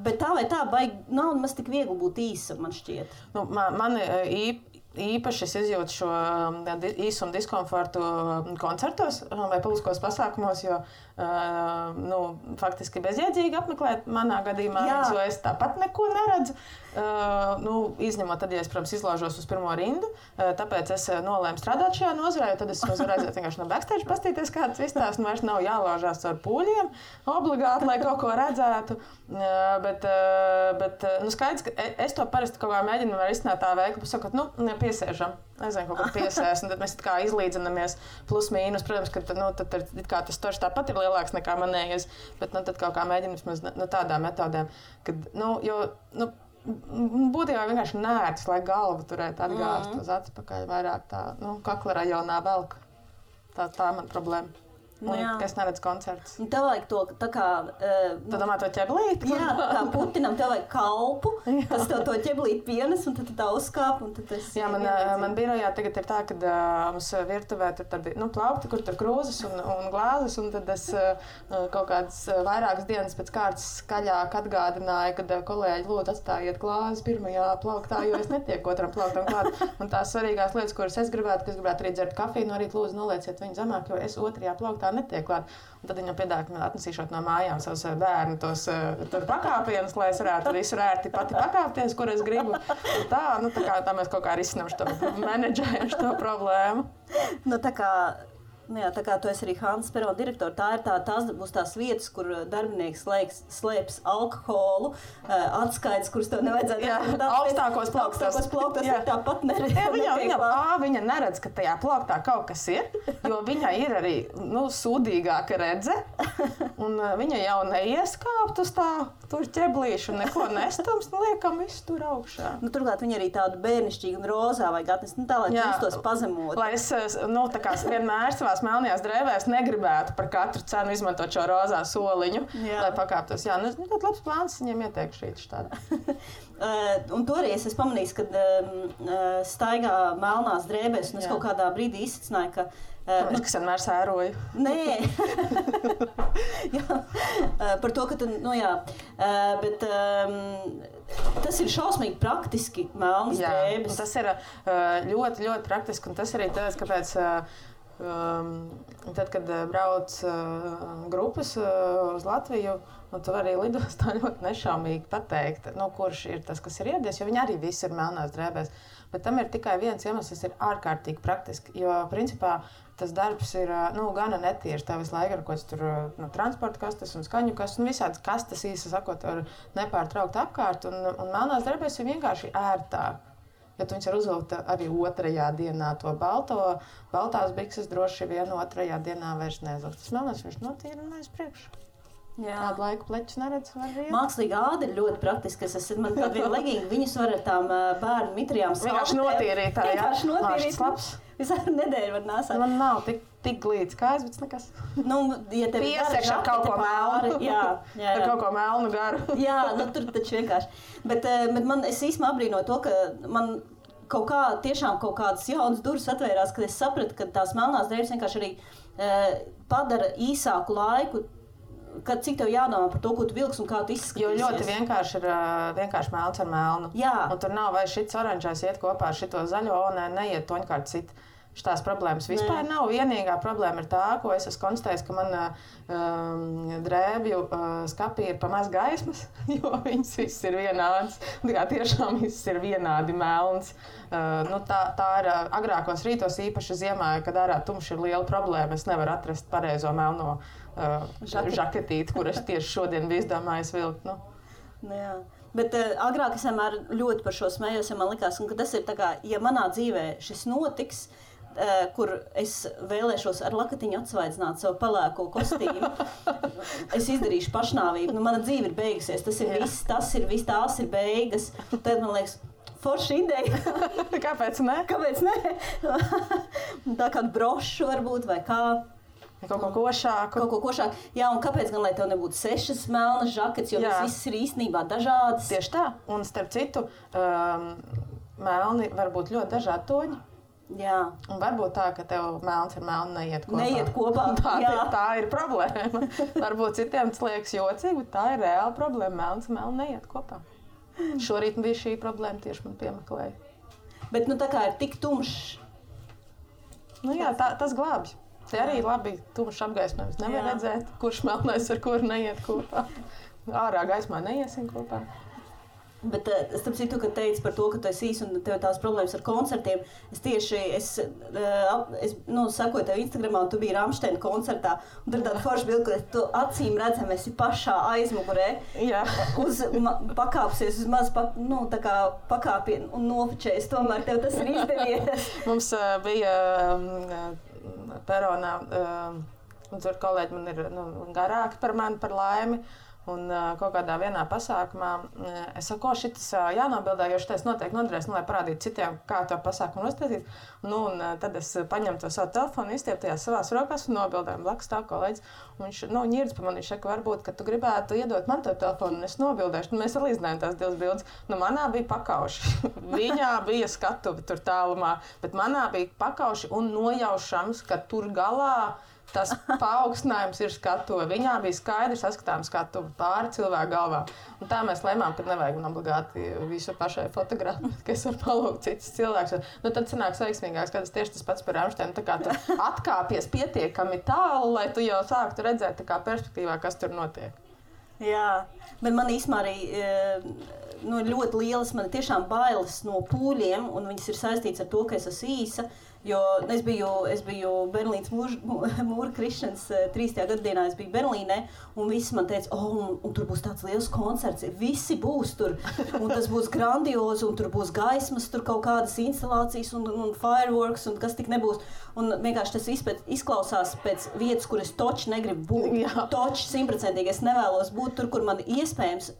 Bet tā vai tā, nav maz tik viegli būt īsa, man šķiet. Man īpaši es izjūtu šo īsumu diskomfortu koncertos vai publiskos pasākumos, jo faktiski bezjēdzīgi apmeklēt manā gadījumā, jo es tāpat neko neredzu. Izņemot tad, ja es, protams, izlaužos uz pirmo rindu, tāpēc es nolēmu strādāt šajā nozarē, jo tad es varēju aiziet vienkārši no backstage pastīties, kāds izstāsts, vairs nav jālaužās ar pūļiem obligāti, lai kaut ko redzētu. Bet skaidrs, ka es to parasti kaut kā mēģinu izsnāt tā veikli, pasakot, piesēžam. Nezinu, kaut kā piesēs, un tad mēs kā izlīdzinamies plus mīnus. Protams, ka tad tas torš tāpat ir lielāks nekā manējais, bet tad kaut kā mēģinam tādām metodēm, kad, būtībā vienkārši nērts, lai galvu turētu atgāzt uz atpakaļ vairāk tā, kakla rajonā velk. Tā man problēma. Ka es neredzu koncertus. Tev vajag to tā kā... Tu domā to ķeblīti? Jā, kā putinam tev vajag kalpu, kas tev to ķeblīti pienes, un tad tā uzkāp, un tad es... Jā, man birojā tagad ir tā, ka mums virtuvē tur tādi, plaukti, kur tur krūzes un glāzes, un tad es kaut kādas vairākas dienas pēc kārtas skaļāk atgādināju, kad kolēģi lūdzu atstājiet glāzes pirmajā plauktā, jo es netieku otram plauktam klāt. Un tās svarīgās lietas, kuras es gribētu arī dzert kafiju, no rīta lūdzu nolieciet viņu zemāk, jo es otrajā plauktā netiek klāt. Un tad viņam piedāvā, ka man atnesīšot no mājām savus bērnu tos tur pakāpienus, lai es varētu visu ērti pati pakāpties, kur es gribu. Tā mēs kaut kā risinām šo menedžējumu, šo problēmu. Tā kā tu esi arī Hanzas perona direktora, tās būs tās vietas, kur darbinieks slēps alkoholu, atskaites, kuras tev nevajadzētu. Augstākos plauktos tāpat neredz. Viņa neredz, ka tajā plauktā kaut kas ir, jo viņai ir arī sūdīgāka redze, un viņa jau neieskāpt uz tur ķeblīšu, neko nestums, liekam visu tur augšā. Turklāt viņa arī tādu bērnišķīgu un rozā vajag atnest, tā lai justos pazemot. Lai es, vienmēr savās melnajās drēbēs negribētu par katru cenu izmantot šo rozā soliņu, lai pakāptos. Jā, ļoti labs plāns viņiem ieteikšu šīt štādā. Un toreiz es pamanīju, ka staigā melnās drēbēs, un es kaut kādā brīdī izsacināju, ka kas vienmēr sēroju. Nē. Par to, ka tu, bet tas ir šausmīgi praktiski melnas drēbes. Tas ir ļoti, ļoti praktiski, un tas arī tāds, kāpēc tad, kad brauc grupas uz Latviju, tu vari lidostā ļoti nešaumīgi pateikt, kurš ir tas, kas ir ieradies, jo viņi arī visi ir melnās drēbēs. Bet tam ir tikai viens iemesls, tas ir ārkārtīgi praktiski, jo principā tas darbs ir gana netīrs. Tā visu laiku ar kaut tur transporta kastes un skaņu kastes, visādas kastes īsi sakot, var nepārtraukt apkārt, un melnās drēbēs ir vienkārši ērtāk. Jo tu viņas var uzvilkt arī otrajā dienā to baltās bikses droši vien otrajā dienā vairs neizvilkt. Tas melnais viņš notīra un aiz priekšu. Kādu laiku pleķus neredz, var riet. Mākslīga āda ir ļoti praktiska. Man kāda viena leginga, viņus var ar tām bērnu mitrijām vienkārši notīrīt. Vienkārši notīrīt. Visā nedēļu var nāsāt. Man nav tik glīts kājas, bet nekas. Ja tev piesakš ar kaut ko melnu. Jā. Ar kaut ko melnu garu. Jā, tur taču vienkārši. Bet es īstenībā abrīnoju to, ka man tiešām kaut kādas jaunas durvis atvērās, kad es sapratu, ka tās melnās drēbes vienkārši arī padara īsāku laiku, kad cik tev jādomā par to, ko tu vilksi un kā tu izskatīsies. Jo ļoti vienkārši ir melns ar melnu. Jā. Un tur nav vai šits oranžais iet kopā ar šito zaļo, neiet toņkārt cit. Šitās problēmas vispār nav. Vienīgā problēma ir tā, ko es esmu konstatējis, ka man drēbju skapī ir pa maz gaismas, jo viņas viss ir vienādas. Tiešām viss ir vienādi melns. Tā ir agrākos rītos, īpaši ziemā, kad ārā tumšs ir liela problēma. Es nevaru atrast pareizo melno žaketīti, kur es tieši šodien biju izdomājis vilkt. Jā. Bet agrāk es vienmēr ļoti par šo smējos, ja man likās, ka tas ir tā kā, ja manā dzīvē šis notiks, kur es vēlēšos ar lakatiņu atsvaidzināt savu pelēko kostīmu, es izdarīšu pašnāvību. Mana dzīve ir beigusies, tas ir viss, tās ir beigas. Tad man liekas, forša ideja. Kāpēc ne? Kāpēc ne? Tā kādu brošu varbūt vai kā. Kaut ko košāku. Jā, un kāpēc gan, lai tev nebūtu 6 melnas žaketes, jo viss ir īstenībā dažādas? Tieši tā. Un starp citu, melni var būt ļoti dažādi toņi. Jā. Un varbūt tā, ka tev melns ar melnu neiet kopā. Tā ir problēma. Varbūt citiem tas liekas jocīgi, bet tā ir reāla problēma. Melns ar melnu neiet kopā. Šorīt bija šī problēma, tieši man piemeklēja. Bet tā kā ir tik tumšs. Tas glābj. Te arī labi tumšs apgaismojums. Nevar redzēt, kurš melnais ar kuru neiet kopā. Ārā gaismā neiesim kopā. Bet starp citu, kad teici par to, ka tu esi īsi un tev tās problēmas ar koncertiem, es sakoju tev Instagramā, un tu biji Rammsteina koncertā, un tur tāda forša bilde, ka tu acīm redzam esi pašā aizmugurē, pakāpsies uz maz, tā kā pakāpienu un nofočējies, tomēr tev tas ir izdevies. Mums bija peronā, un tur kolēģi man ir garāki par mani, par laimi. Un kaut kādā vienā pasākumā es saku, šitas jānobildē, jo šitais noteikti noderēs, lai parādītu citiem, kā to pasākumu uztaisīt. Un tad es paņemu to savu telefonu, izstiepu tajās savās rokās un nobildēju. Blakus stāv kolēģis. Viņš ņirds pa mani, viņš saka, varbūt, ka tu gribētu iedot man to telefonu, un es nobildēšu. Mēs salīdzinājām tās divas bildes. Manā bija pakauši. Viņā bija skatuve tur tālumā, bet manā bija pakauši un nojaušams, ka tur galā tas paaugstinājums ir skatuve. Viņā bija skaidri saskatāms skatuve pāri cilvēku galvā. Un tā mēs lēmām, ka nevajag man obligāti visu pašai fotografēt, ka es varu palūgt citus cilvēkus. Tad sanāks veiksmīgāks, kad es tieši tas pats par Rammsteinu. Tā kā tu atkāpies pietiekami tālu, lai tu jau sāktu redzēt tā kā perspektīvā, kas tur notiek. Jā, bet man īstenībā arī ļoti lielas, man tiešām bailes no pūļiem, un viņas ir saistīts ar to, ka es esmu īsa. Jo es biju Berlīnas mūra krišanas 3. gadadienā, es biju Berlīnē, un visi man teica, un tur būs tāds liels koncerts, visi būs tur, un tas būs grandiozi, un tur būs gaismas, tur kaut kādas instalācijas un fireworks, un kas tik nebūs. Un vienkārši tas viss izklausās pēc vietas, kur es toči negribu būt. Toči 100%, es nevēlos būt tur, kur man iespējams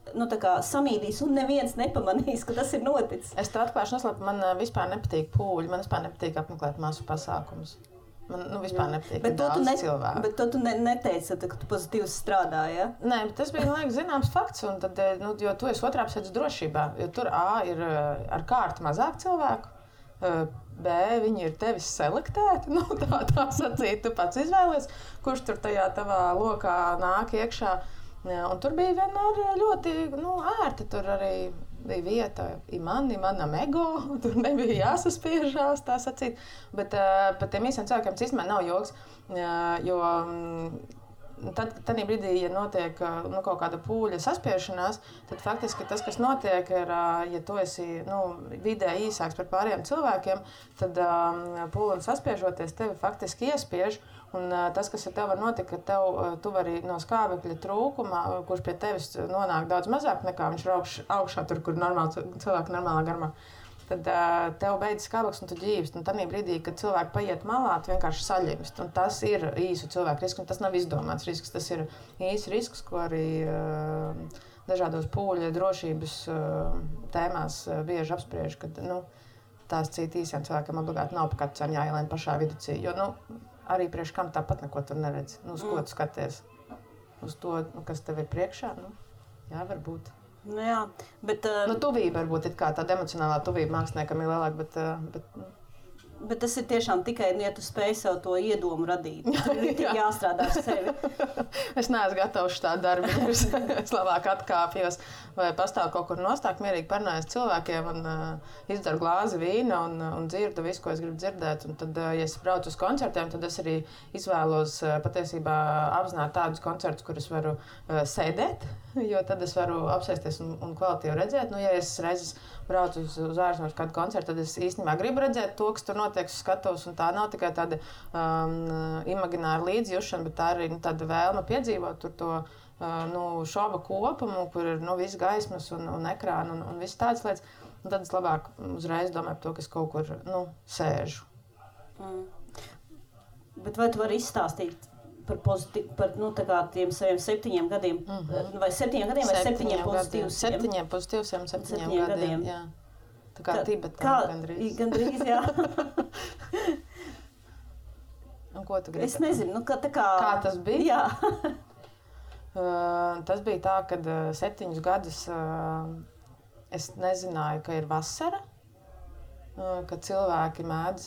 samīdīs, un neviens nepamanīs, ka tas ir noticis. Es tev atklāšu noslēpu, man vispār nepatīk pūļi, man vispār nepatīk apmeklēt masu pasākumus. Man vispār nepatīk daudz cilvēku. Bet tu neteici, ka tu pozitīvi strādāji, ja? Nē, bet tas bija, man liekas, zināms fakts, un tad, jo tu esi otrā pusē drošībā, jo tur ir ar kārtu mazāk cilvēku, B, viņi ir tevis selektēti, tā sacīt, tu pats izvēlies, kurš tur tajā tavā lokā nāk iekšā. Un tur bija vienmēr ļoti ērti, tur arī bija vieta manam ego, tur nebija jāsaspiežās, tā sacīt. Bet par tiem īsiem cilvēkiem tas īstenībā nav joks, jo tad brīdī, ja notiek kaut kāda pūļa saspiešanās, tad faktiski tas, kas notiek, ir, ja tu esi vidē īsāks par pārējiem cilvēkiem, tad pūlim saspiežoties tevi faktiski iespiež. Un tas, kas ar tevi var notikt, ka tu vari no skābekļa trūkuma, kurš pie tevis nonāk daudz mazāk nekā viņš ir augšā tur, kur cilvēki normālā garumā. tad tev beidzas skābeklis un tu ģīvst. Un tādā brīdī, kad cilvēki paiet malā, tu vienkārši saļimst. Un tas ir īsu cilvēku risks, un tas nav izdomāts risks. Tas ir īsts risks, ko arī dažādos pūļa drošības tēmās bieži apspriež, kad tās citi īsiem cilvēkiem obligāti nav pa katru cenu jāielien pašā viducī. Jo arī priekš kam tāpat neko tur neredz. Uz ko tu skaties? Uz to, kas tev ir priekšā? Jā, varbūt. Jā, bet... tuvība varbūt ir kā tāda emocionālā tuvība māksliniekam ir lielāka, bet tas ir tiešām tikai, ja tu spēj sev to iedomu radīt. Tur ir tik jāstrādā ar sevi. Es neesmu gatavs šādu darbu. Es labāk atkāpjos vai pastāvu kaut kur nostāk, mierīgi parunājos cilvēkiem un izdzeru glāzi vīna un dzirdu visu, ko es gribu dzirdēt. Un tad, ja es braucu uz koncertiem, tad es arī izvēlos patiesībā apzināt tādus koncertus, kur es varu sēdēt, jo tad es varu apsēsties un kvalitīvi redzēt. Ja es reizes braucu uz ārzemēs kādu koncertu, tad es īstenībā gribu redzēt to, kas tur notiek uz skatuves. Tā nav tikai tāda imagināra līdzjūšana, bet tā arī tāda vēlme piedzīvot tur to šova kopumu, kur ir viss gaismas un ekrāna un viss tādas lietas. Un tad es labāk uzreiz domāju par to, ka es kaut kur sēžu. Bet vai tu vari izstāstīt par tiem saviem 7 gadiem? Vai 7 gadiem vai 7 pozitīviem? 7 pozitīviem, 7 gadiem. Jā. Tā kā Tibetā gandrīz. Gandrīz, jā. Un ko tu gribi? Es nezinu, kā tas bija? Jā. Tas bija tā, kad 7 gadus es nezināju, ka ir vasara, ka cilvēki mēdz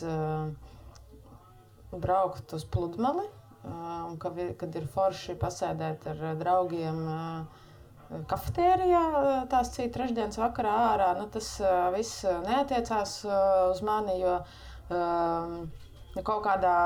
braukt uz pludmali, un kad ir forši pasēdēt ar draugiem kafetērijā tās cita trešdienas vakarā ārā. Tas viss neatiecās uz mani, jo kaut kādā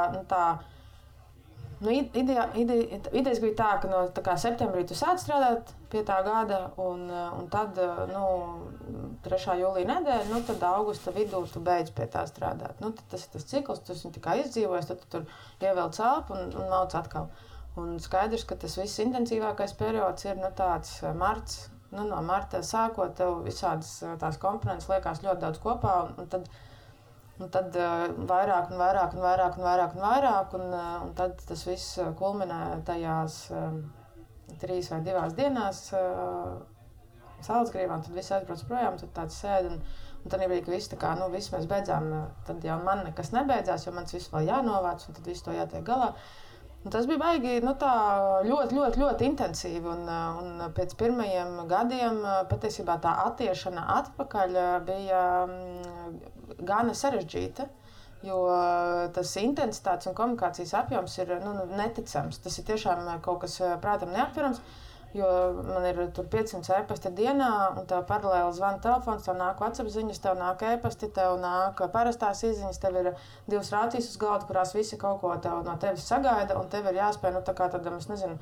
idejas bija tā, ka no septembrī tu sāc strādāt pie tā gada, un tad 3. jūlija nedēļa, tad augusta vidū tu beidz pie tā strādāt. Tad tas ir tas cikls, tu viņu tikai izdzīvojies, tad tu tur ievelc elpu un mauc atkal. Un skaidrs, ka tas viss intensīvākais periods ir tāds marts. No marta sākot, tev visādas tās komponentes liekas ļoti daudz kopā, un tad vairāk, un tad tas viss kulminē tajās 3 vai 2 dienās Salacgrīvā, un tad viss aizbrauc projām, tad tāds sēd, un tad bija, ka viss mēs beidzām, tad jau man nekas nebeidzās, jo mans viss vēl jānovāc, un tad viss to jātiek galā. Un tas bija baigi ļoti intensīvi, un pēc pirmajiem gadiem patiesībā tā attiešana atpakaļ bija gana sarežģīta, jo tas intensitātes un komunikācijas apjoms ir neticams. Tas ir tiešām kaut kas prātam neaptverams, jo man ir tur 500 e-pasti dienā, un tev paralēli zvana telefons, tev nāk WhatsApp ziņas, tev nāk e-pasti, tev nāk parastās izziņas, tev ir 2 rācijas uz galda, kurās visi kaut ko no tevis sagaida, un tev ir jāspēj, tā kā tādam, es nezinu,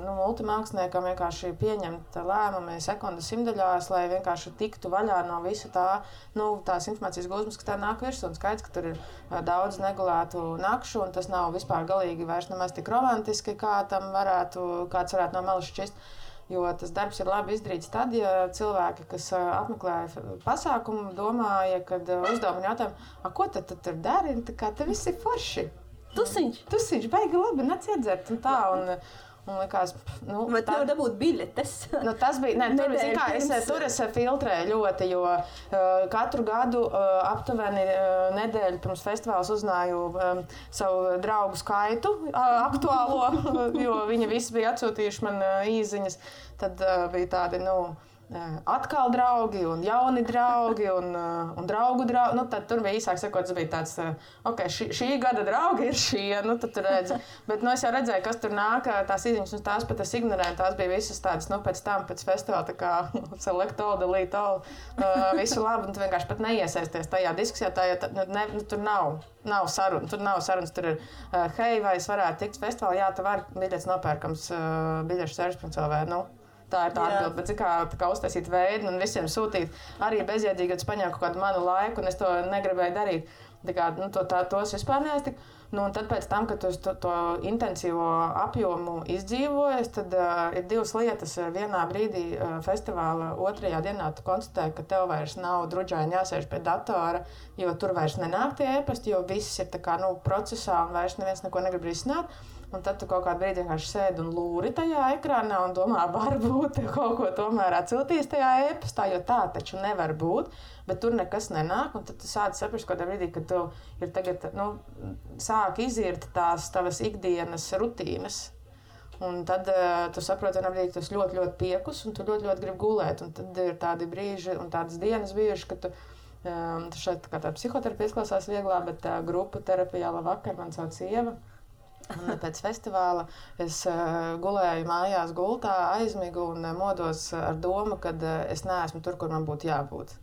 multimāksliniekam vienkārši pieņemt lēmumi sekundes simtaļās, lai vienkārši tiktu vaļā no visa tās informācijas gūzmas, kas tev nāk virsū, un skaidrs, ka tur ir daudz negulētu nakšu, un tas nav vispār galīgi vairs nemaz tik romantiski, kāds varētu no malas šķist. Jo tas darbs ir labi izdarīts tad, ja cilvēki, kas apmeklēja pasākumu, domāja, kad uzdevumi jautājumu, ko tad tur dari? Tā kā te viss ir forši. Tusiņš, baigi labi, nāc iedzert un tā. Un likās, vai tev dabūt biļetes? Tas bija, tur es filtrēju ļoti, jo katru gadu aptuveni nedēļu pirms festivāls uzzināju savu draugu skaitu aktuālo, jo viņi visi bija atsūtījuši man īziņas. Tad bija tādi, atkal draugi un jauni draugi un draugu draugi. Tad tur bija īsāk sakot, tas bija tāds, šī gada draugi ir šie, tad tur redzi. Bet es jau redzēju, kas tur nāk, tās izziņas, un tās pat es ignorēju, tās bija visas tādas, pēc festivāla, tā kā select all, delete all, visu labi, un tu vienkārši pat neiesaisties tajā diskusijā, tur nav sarunas, tur ir, hei, vai es varētu tikt festivālā, jā, tev var biļets nopērkams biļešu servis.lv, Tā ir tā atbilde, bet kā uztaisīt veidu un visiem sūtīt arī bezjēdzīgi, kad es paņēmu kaut kādu manu laiku un es to negribēju darīt. Tos vispār neaiztiku. Nu, un tad pēc tam, kad tu to intensīvo apjomu izdzīvojies, tad ir divas lietas. Vienā brīdī festivāla otrajā dienā tu konstatēji, ka tev vairs nav druģaini jāsēž pie datora, jo tur vairs nenāk tie e-pasti, jo viss ir tā kā, procesā un vairs neviens neko negrib risināt. Un tad tu kaut kādu brīdi vienkārši sēdi un lūri tajā ekrānā un domā, varbūt kaut ko tomēr atciltīs tajā e-pastā, jo tā taču nevar būt, bet tur nekas nenāk. Un tad tu sāc saprast kādā brīdī, ka tu ir tagad, sāk izirt tās tavas ikdienas rutīnas. Un tad tu saproti, ka tu esi ļoti, ļoti piekus un tu ļoti, ļoti gribi gulēt. Un tad ir tādi brīži un tādas dienas bijuši, ka tu šeit kā tā psihoterapija izklausās vieglā, bet grupu terapijā labvakar man sauc Ieva. Un pēc festivāla es gulēju mājās gultā, aizmigu un modos ar domu, ka es neesmu tur, kur man būtu jābūt.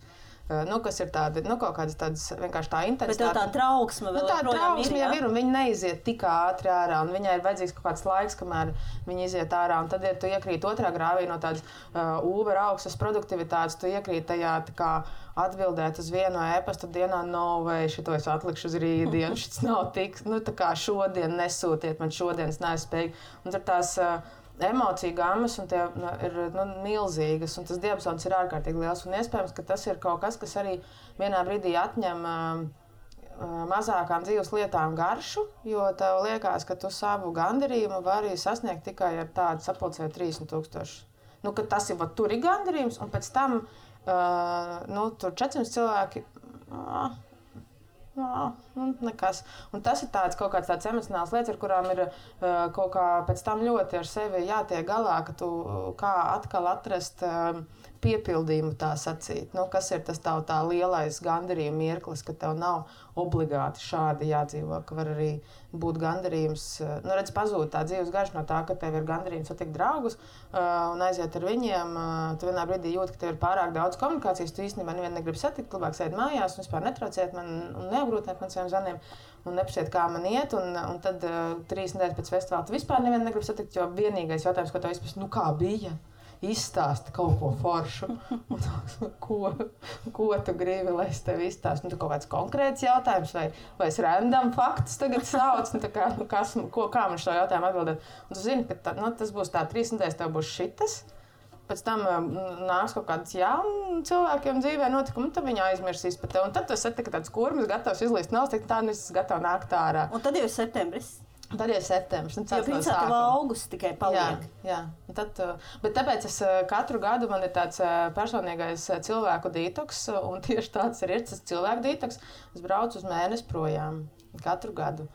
Kas ir tādi, kaut kādas tādas vienkārši tā intensitāte. Bet tā trauksme vēl tā trauksme jau ir, un viņi neiziet tik ātri ārā, un viņai ir vajadzīgs kaut kāds laiks, kamēr viņi iziet ārā, un tad, ja tu iekrīt otrā grāvī no tādas Uber augstas produktivitātes, tu iekrīt tajā tā kā atbildēt uz vienu e-pastu dienā, vai šito es atlikšu uz rītdienu, šis nav tik, tā kā šodien nesūtiet, man šodienas nespēj. Un tur tās emociju gammas un tie ir milzīgas, un tas diapazons ir ārkārtīgi liels. Un iespējams, ka tas ir kaut kas, kas arī vienā brīdī atņem mazākām dzīves lietām garšu, jo tev liekas, ka tu savu gandarījumu vari sasniegt tikai ar tādu sapulcēju 30,000. Ka tas ir, tur ir gandarījums, un pēc tam tur 400 cilvēki. Nekas. Un tas ir kaut kāds tāds emocionāls lietas, ar kurām ir kaut kā pēc tam ļoti ar sevi jātiek galā, ka tu kā atkal atrast piepildījumu tā sacīt. Kas ir tas tā lielais gandarījuma mirklis, ka tev nav obligāti šādi jādzīvo, ka var arī būt gandarījums. Redz, pazūd tā dzīves garša no tā, ka tev ir gandarījums satikt draugus un aiziet ar viņiem. Tu vienā brīdī jūti, ka tev ir pārāk daudz komunikācijas, tu īstenībā nevienu negribi satikt, labāk sēdi mājās un vispār netrauciet man un neapgrūtiniet man saviem zvaniem un neprasiet, kā man iet. Un tad 3 nedēļas pēc festivāla tu vispār nevienu negribi satikt, jo vienīgais jautājums, ko tev vispār, kā bija? Izstāsti kaut ko foršu. Ko tu gribi, lai es tev izstāstu? Tu kaut kāds konkrēts jautājums vai es random faktus tagad sauc? Kā man šo jautājumu atbildēt? Un tu zini, ka tas būs tā 3 nedēļas, tev būs šitas. Pēc tam nāks kaut kāds jaunu cilvēkiem dzīvē notikumi, un tad viņi aizmirsīs par tevi. Un tad tu esi tāds kurmis, gatavs izlīst nav, tā es gatavs nākt ārā. Un tad jau ir septembris. Tad ir septembris. Jo principā tev augusts tikai paliek. Jā. Bet tāpēc es katru gadu man ir tāds personīgais cilvēku detoks, un tieši tāds ir tas cilvēku detoks. Es braucu uz mēnesi projām katru gadu.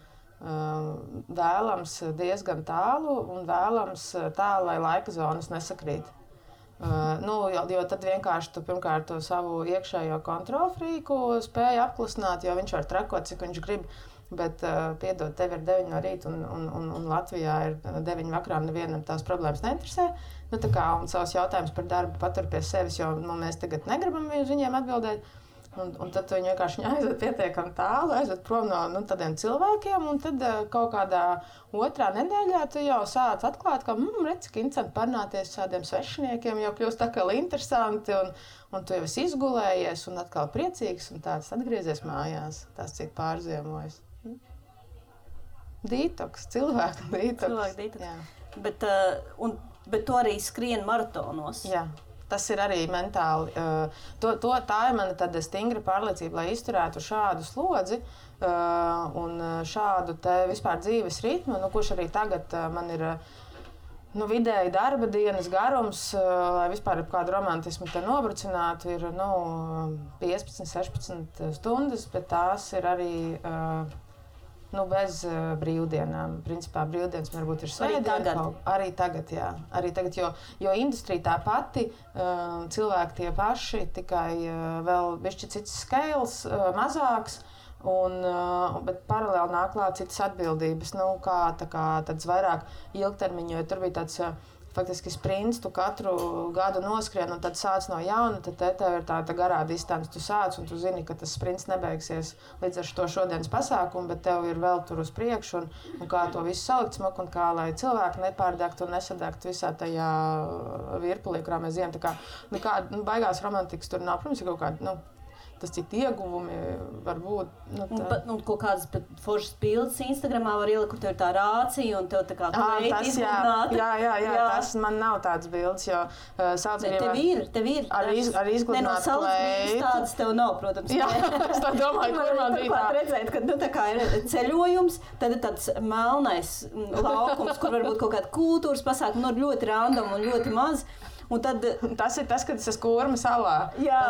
Vēlams diezgan tālu un vēlams tā, lai laika zonas nesakrīt. Jo tad vienkārši tu pirmkārt to savu iekšējo kontrolfrīku spēju apklusināt, jo viņš var trakot, cik viņš grib. Bet, piedod, tev ir 9 no rīta un Latvijā ir 9 vakarā, nevienam tās problēmas neinteresē. Un savus jautājumus par darbu patur pie sevis, jo mēs tagad negribam uz viņiem atbildēt. Un tad viņi vienkārši aizved pietiekami tālu, aizved prom no tādiem cilvēkiem, un tad kaut kādā otrā nedēļā tu jau sāc atklāt, ka redz, cik interesanti parunāties ar tādiem svešiniekiem, jau kļūst atkal interesanti, un tu jau esi izgulējies un atkal priecīgs, un tāds atgriezies mājās, tās cik pārziemojas. Detoks, cilvēku detoks. Bet tu arī skrien maratonos. Jā. Tas ir arī mentāli. Tā ir mana tāda stingra pārliecība, lai izturētu šādu slodzi un šādu vispār dzīves ritmu, kurš arī tagad man ir vidēji darba dienas garums, lai vispār kādu romantismu te nobrucinātu, ir 15-16 stundas, bet tās ir arī bez brīvdienām. Principā brīvdienas varbūt ir svētdiena. Arī tagad, jā. Arī tagad, jo industrija tā pati, cilvēki tie paši, tikai vēl bišķi cits scales, mazāks, bet paralēli nāk klāt citas atbildības, tāds vairāk ilgtermiņu, jo tur bija tāds faktiski sprints, tu katru gadu noskrien un tad sāc no jauna, tad tev ir tāda garā distance, tu sāc un tu zini, ka tas sprints nebeigsies līdz ar to šodienas pasākumu, bet tev ir vēl tur uz priekšu un kā to visu salikt smuku un kā, lai cilvēki nepārdegtu un nesadegtu visā tajā virpulī, kurā mēs ejam. Baigās romantikas tur nav, protams, ir kaut kāda, tas citi ieguvumi var būt. Un kaut kādas foršas bildes Instagramā var ielikt, kur tev ir tā rācija un tev tā kā tas, jā, tas man nav tāds bildes, jo tev ir. Ar izgludināt kleitu. Tādas tev nav, protams. Jā, es tā domāju, kur man bija tā. Redzēt, ka tā kā ir ceļojums, tad ir tāds melnais laukums, kur varbūt kaut kāda kultūras pasākuma, ļoti random un ļoti maz. Un tad, tas ir tas, kad es esmu Kurma salā.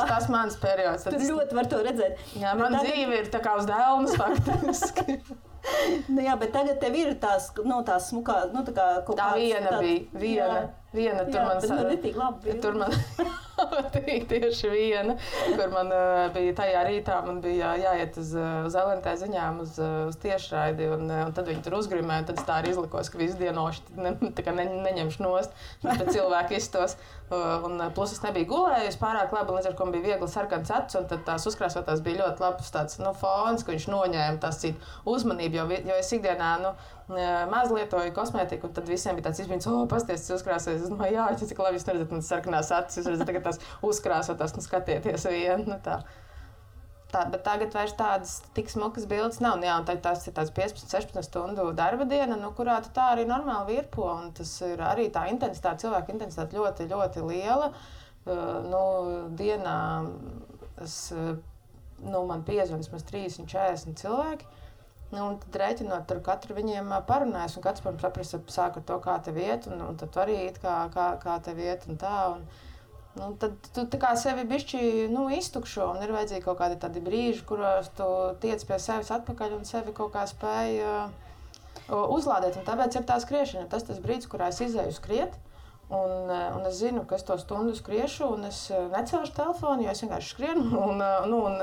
Tas mans periods. Tur ļoti var to redzēt. Jā, man dzīve ir tā kā uz dēlnes faktiski. Jā, bet tagad tev ir tās smukā, tā kā kaut kāds... Tā viena. Tur man netīgi labi. Tur man tieši viena, kur man bija tajā rītā, man bija jāiet uz LNT ziņām, uz tiešraidi, un tad viņi tur uzgrimēja, un tad es tā arī izlikos, ka visu dienoši neņemšu nost, bet cilvēki izstos. Un plus es nebiju gulējusi pārāk labi, līdz ar ko man bija viegli sarkans acis, un tad tās uzkrāsotās bija ļoti labs tāds fons, ka viņš noņēma tās citu uzmanību, jo es ikdienā maz lietoju kosmētiku, un tad visiem bija tāds izbrīns, pasties, tas uzkrāsojas. Es domāju, jā, cik labi jūs neredzat manas sarkanās acis, jūs redzat tagad tās uzkrāsotās, skatieties vienu, tā. Bet tagad vairs tādas tik smukas bildes nav. Jā, un tās ir tāds 15-16 stundu darba diena, kurā tu tā arī normāli virpo, un tas ir arī tā intensitāte, cilvēka intensitāte ļoti, ļoti liela. Dienā man piezvan vismaz 30-40 cilvēki. Un tad rēķinot, tur katru viņiem parunājas, un katrs, protams, saprasa, sāk ar to, kā tev iet, un tad tu arī it kā tev iet un tā. Un tad tu tā kā sevi bišķi iztukšo, un ir vajadzīgi kaut kādi tādi brīži, kuros tu tiec pie sevis atpakaļ un sevi kaut kā spēj uzlādēt. Un tāpēc ir tā skriešana. Tas brīdis, kurā es izēju skriet, un es zinu, ka es to stundu skriešu, un es necelšu telefonu, jo es vienkārši skrienu, un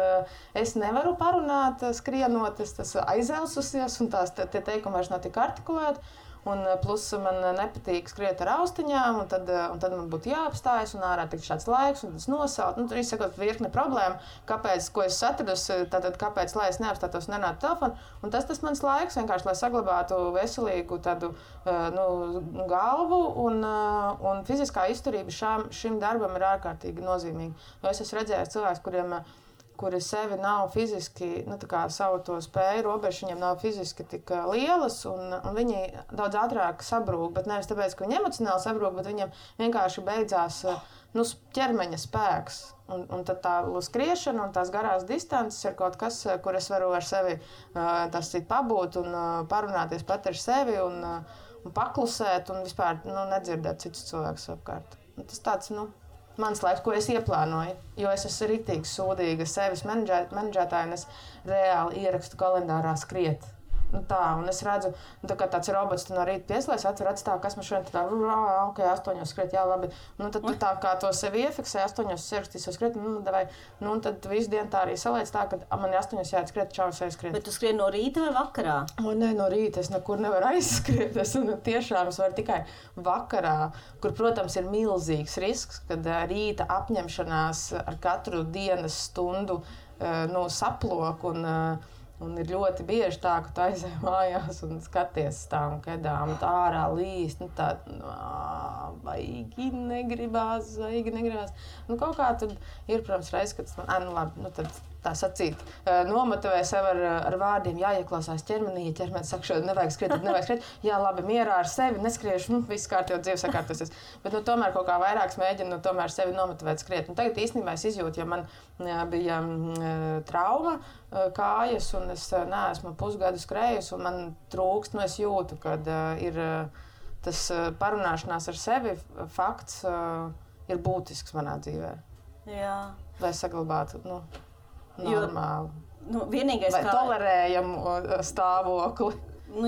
es nevaru parunāt skrienot, es aizelsusies, un tie teikumi vairs nav tik artikulēti. Un plus man nepatīk skriet ar austiņām, un tad man būtu jāapstājas, un ārā tik šāds laiks, un tas nosaut. Tur izsakot virkne problēma, ko es atradusi, tātad kāpēc, lai es neapstātos un nenātu telefonu. Un tas mans laiks vienkārši, lai saglabātu veselīgu tādu galvu, un fiziskā izturība šim darbam ir ārkārtīgi nozīmīga. Jo es esmu redzējis cilvēkus, kuri sevi nav fiziski, savu to spēju, robežu viņiem nav fiziski tik lielas, un viņi daudz ātrāk sabrūk, bet nevis tāpēc, ka viņi emocionāli sabrūk, bet viņiem vienkārši beidzās ķermeņa spēks. Un tad tā skriešana un tās garās distances ir kaut kas, kur es varu ar sevi pabūt un parunāties pat ar sevi un paklusēt un vispār nedzirdēt citus cilvēkus apkārt. Un tas tāds, mans laiks, ko es ieplānoju, jo es esmu ritīgi sūdīga sevis menedžētāja, un es reāli ierakstu kalendārā skriet. Un es redzu, kā tāds robots no rīta pieslēdz, atver acis tā, kas man šodien tā, ok, 8 skriet, jā, labi. Tad tu tā kā to sevi iefiksē, 8 ierakstīsi skriet, davai. Un tad visu dienu tā arī saliec tā, ka man ir 8 jāiet skriet, čau, es skriet. Bet tu skrien no rīta vai vakarā? Nē, no rīta es nekur nevaru aizskriet. Es tiešām varu tikai vakarā, kur, protams, ir milzīgs risks, kad rīta apņemšanās ar katru dienas stundu saplok un ir ļoti bieži tā, ka tu aizej mājās un skaties tām kedām, tā ārā līst, vaigi negribās. Kaut kā tad ir, protams, reiz, kad labi, tad tā sacīt, nomotivē sev ar vārdiem, jāieklausās ķermenī, ja ķermenis saka, šodien nevajag skriet, jā, labi, mierā ar sevi, neskriešu, viss kārtībā dzīve sakārtosies. Bet tomēr kaut kā vairāk mēģinu tomēr sevi nomotivēt skriet. Un tagad īstenībā es izjūtu, ja man bija trauma kājas, un es neesmu pusgadu skrējusi, un man trūkst, es jūtu, kad ir tas parunāšanās ar sevi fakts ir būtisks manā dzīvē. Jā. Lai saglabātu, normāli. Vienīgais, vai tolerējamu stāvokli.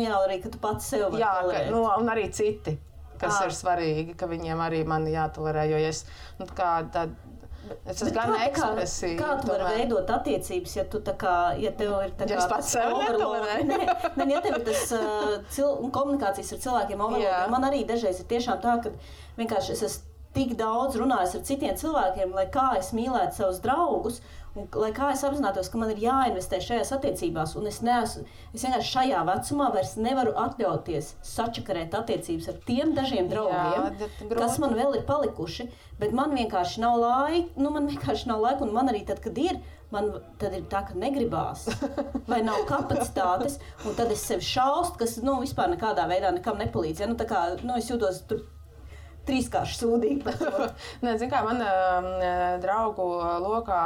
Jā, arī, ka tu pats sev vari tolerēt. Un arī citi, kas ir svarīgi, ka viņiem arī mani jātolerē, jo es esmu gan ekspresīva. Kā tu vari veidot attiecības, ja tu ja tev ir tā kā... Ja es pats sev netolerēju. Ja tev ir tas komunikācijas ar cilvēkiem overload, man arī dažreiz ir tiešām tā, ka vienkārši es esmu tik daudz runājis ar citiem cilvēkiem, lai kā es mīlētu savus draugus, un lai kā es apzinātos, ka man ir jāinvestē šajās attiecībās, un es vienkārši šajā vecumā vairs nevaru atļauties sačakarēt attiecības ar tiem dažiem draugiem, kas man vēl ir palikuši, bet man vienkārši nav laika, un man arī tad, kad ir, tad ir tā, ka negribās, vai nav kapacitātes, un tad es sevi šaustu, kas vispār nekādā veidā nekam nepalīdz. Ja? Tā kā, es jūtos tur trīskārši sūdīgi par to. Nē, zin kā, man draugu lokā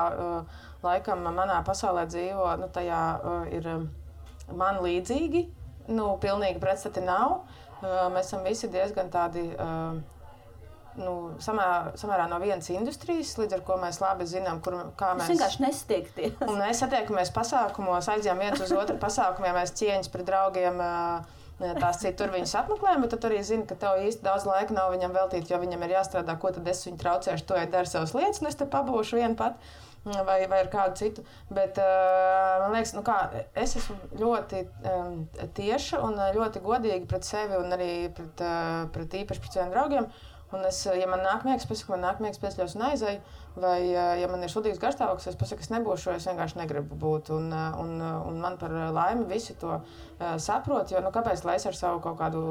laikam manā pasaulē dzīvo, tajā ir man līdzīgi, pilnīgi pretstati nav. Mēs esam visi diezgan tādi samērā no vienas industrijas, līdz ar ko mēs labi zinām, kā mēs... Mēs vienkārši nesatiekties. Un mēs satiekamies pasākumos, aizjām viens uz otru pasākumiem, mēs cieņas pret draugiem, tās citi tur viņus apmeklējam, bet tu arī zini, ka tev īsti daudz laika nav viņam veltīt, jo viņam ir jāstrādā, ko tad es viņu traucēšu, to dara savas lietas, un es te pabūšu vienu pat. Vai ar kādu citu. Bet man liekas, es esmu ļoti tieša un ļoti godīga pret sevi un arī pret īpaši pret saviem draugiem. Un ja man nāk miegs, pasaku, man nāk miegs, piesļos un aizēju. Vai, ja man ir sudīgs garstāvoklis, es pasaku, es nebūšu, es vienkārši negribu būt. Un man par laimi visi to saprot, jo kāpēc lai es ar savu kaut kādu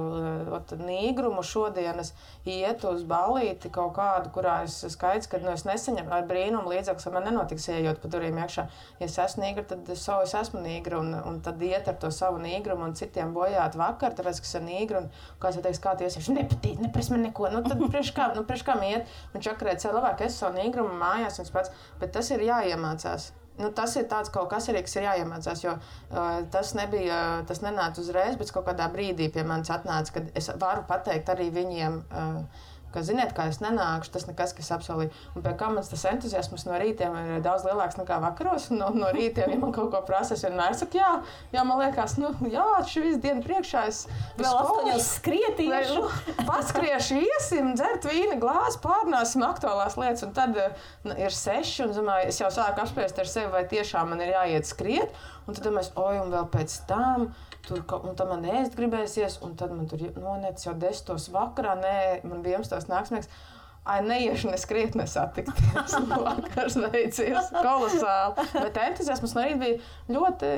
nīgrumu šodienas ietu uz ballīti kaut kādu, kurā es skaidrs, ka es nesaņemu ar brīnumu līdzeklis, man nenotiks ejot pa durvīm iekšā. Ja es esmu nīgra, tad es esmu nīgra un tad iet ar to savu nīgrumu un citiem bojāt vakar, tāpēc, ka es esmu nīgra un kāds jau teiks, kā tu iesies, nepatīk, nepres man neko, tad priekš kam iet un čakarēt sev labāk, es savu nīgrumu mājās un pats, bet tas ir jāiemācās. Tas ir tāds kaut kas arī, kas ir jāiemācās, jo tas nenāca uzreiz, bet kaut kādā brīdī pie manis atnāca, kad es varu pateikt arī viņiem, ka ziniet, kā es nenākšu, tas nekas, kas apsolīju. Un pie kā mans tas entuziasms no rītiem ir daudz lielāks nekā vakaros, un no rītiem, ja man kaut ko prasa, es vienmēr saku, jā, man liekas, šī visu dienu priekšā es vēl 8 skrietīšu. Paskriešu, iesim, dzert vīna glāzi, pārnāsim aktuālās lietas, un tad ir 6, un domāju, es jau sāku apspriest ar sevi, vai tiešām man ir jāiet skriet, un tad mēs, un vēl pēc tam, un tad man ēst gribēsies, un tad man tur nonec jau 10 vakarā, man 11 nāksmēks. Neiešu neskriet nesatikties. Vakars veicies kolosāli. Bet entuziasms no rīta bija ļoti,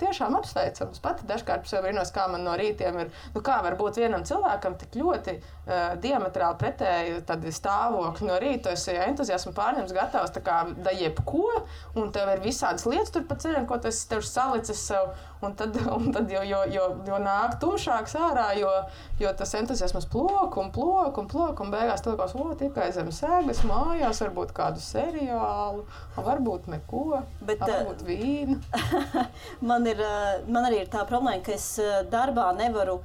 tiešām apsveicams. Pati dažkārt sev brīnos, kā man no rītiem ir, kā var būt vienam cilvēkam tik ļoti diametrāli pretēji tādi stāvokļi no rīta. Tu esi entuziasmu pārņems gatavs tā kā da jebko, un tev ir visādas lietas tur pa ceļam, ko tu esi tev salicis sev, un tad jo nāk tumšāks ārā, jo tas entuziasmas plok, un beigās tu likās, tikai zem sēgas mājās, varbūt kādu seriālu, varbūt neko, varbūt vīnu. Man arī ir tā problēma, ka es darbā nevaru,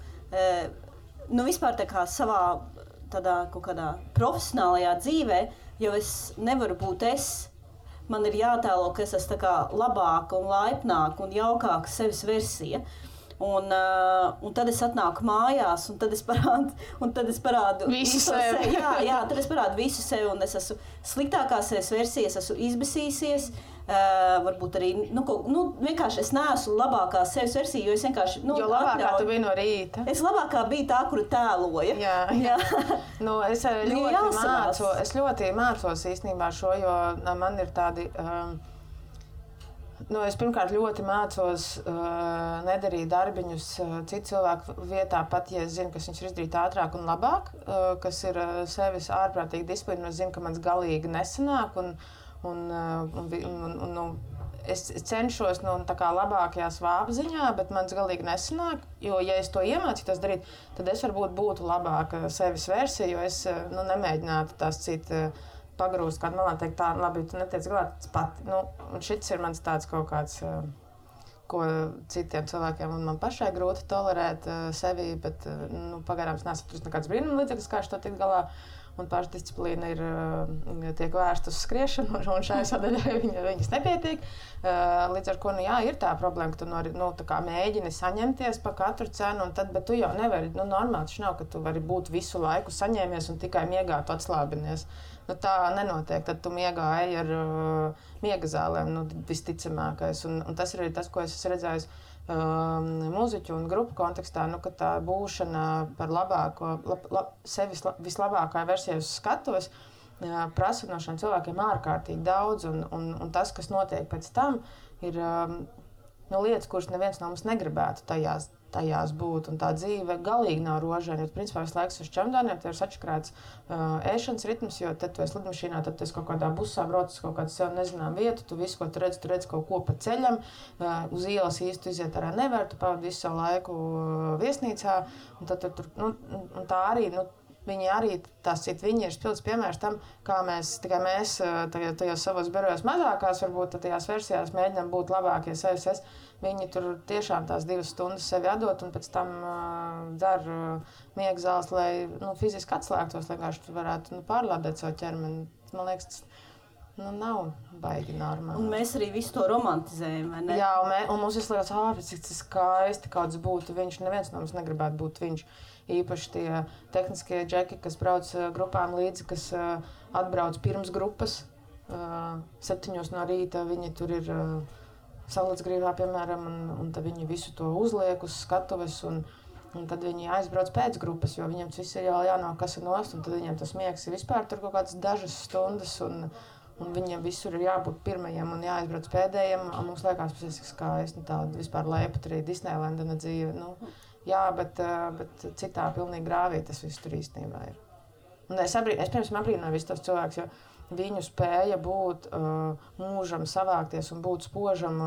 vispār tā kā savā tādā kaut kādā profesionālajā dzīvē, jo es nevaru būt man ir jātēlo, ka es esmu tā kā labāka un laipnāka un jaukāka sevis versija. Un tad es atnāku mājās, un tad es parādu visu sevi. Jā, tad es parādu visu sevi, un es esmu sliktākā sevis versija, es esmu izbesīsies, varbūt arī, vienkārši es neesmu labākā sevis versija, jo es vienkārši, jo labākā tu biji no rīta. Es labākā biju tā, kuru tēloja. Jā. Es ļoti mācos īstenībā šo, jo man ir tādi... Es pirmkārt ļoti mācos nedarīt darbiņus citu cilvēku vietā, pat ja es zinu, kas viņš ir izdarīt ātrāk un labāk, kas ir sevis ārprātīgi disciplīna, es zinu, ka mans galīgi nesanāk, un es cenšos tā kā labākajā svāpziņā, bet mans galīgi nesanāk, jo ja es to iemācītos darīt, tad es varbūt būtu labāka sevis versija, jo es nemēģinātu tās citu pagrūst kādu malā, teikt tā, labi, tu netiec galā, tas pati. Un šits ir mans tāds kaut kāds, ko citiem cilvēkiem un man pašai grūti tolerēt sevi, bet pagarām es neesmu atrust nekāds brīnuma līdzeklis, kā to tikt galā. Un pašdisciplīna tiek vērsta uz skriešanu, un šai sadaļai viņas nepietiek. Līdz ar ko, ir tā problēma, ka tu tā kā mēģini saņemties pa katru cenu, bet tu jau nevari, normāli taču nav, ka tu vari būt visu laiku saņēmies un tikai miegā tu atslābinies. Tā nenotiek, tad tu miegā ej ar miega zālēm, visticamākais. Un tas ir arī tas, ko es esmu redzējis mūziķu un grupu kontekstā, ka tā būšana par labāko, sevis vislabākā versija uz skatuves prasa no šiem cilvēkiem ārkārtīgi daudz, un tas, kas notiek pēc tam, ir lietas, kuras neviens no mums negribētu tajās būt, un tā dzīve galīgi nav rožaina, jo principā visu laiku uz čemodāniem tev ir sačakrāts ēšanas ritms, jo tad tu esi lidmašīnā, tad tu esi kaut kādā busā brauc uz kaut kādu sev nezinām vietu, tu visu, ko tu redz kaut ko pa ceļam, uz ielas īsti iziet arā nevar, tu pavadi visu savu laiku viesnīcā, un tad tur, un tā arī, viņi arī, viņi ir spilgts piemērs tam, kā tikai mēs tajos savos birojos mazākās, varbūt tajās versijās mēģinām būt labākie sevis. Viņi tur tiešām tās 2 stundas sevi atdot un pēc tam dzer miega zāles, lai fiziski atslēgtos, lai vienkārši varētu pārlādēt savu ķermeni. Man liekas, tas nav baigi normāli. Un mēs arī visu to romantizējam, vai ne? Jā, un mums visu liekas, cik tas skaisti kāds būtu viņš. Neviens no mums negribētu būt viņš. Īpaši tie tehniskie džeki, kas brauc grupām līdzi, kas atbrauc pirms grupas 7 no rīta, viņi tur ir Saulēcgrīvā, piemēram, un tad viņi visu to uzliek uz skatuves, un tad viņi aizbrauc pēc grupas, jo viņiem tas viss ir jau jānokasa nost, un tad viņiem tas miegs ir vispār tur kaut kādas dažas stundas, un viņiem visur ir jābūt pirmajiem un jāaizbrauc pēdējiem, un mums liekas, tas ir skaisti, tāda vispār leipat arī Disneylendana dzīve, jā, bet citā pilnīgi grāvī tas viss tur īstenībā ir. Un es piemēram abrīnoju visus tos cilvēkus, jo viņu spēja būt mūžam savākties un būt spožam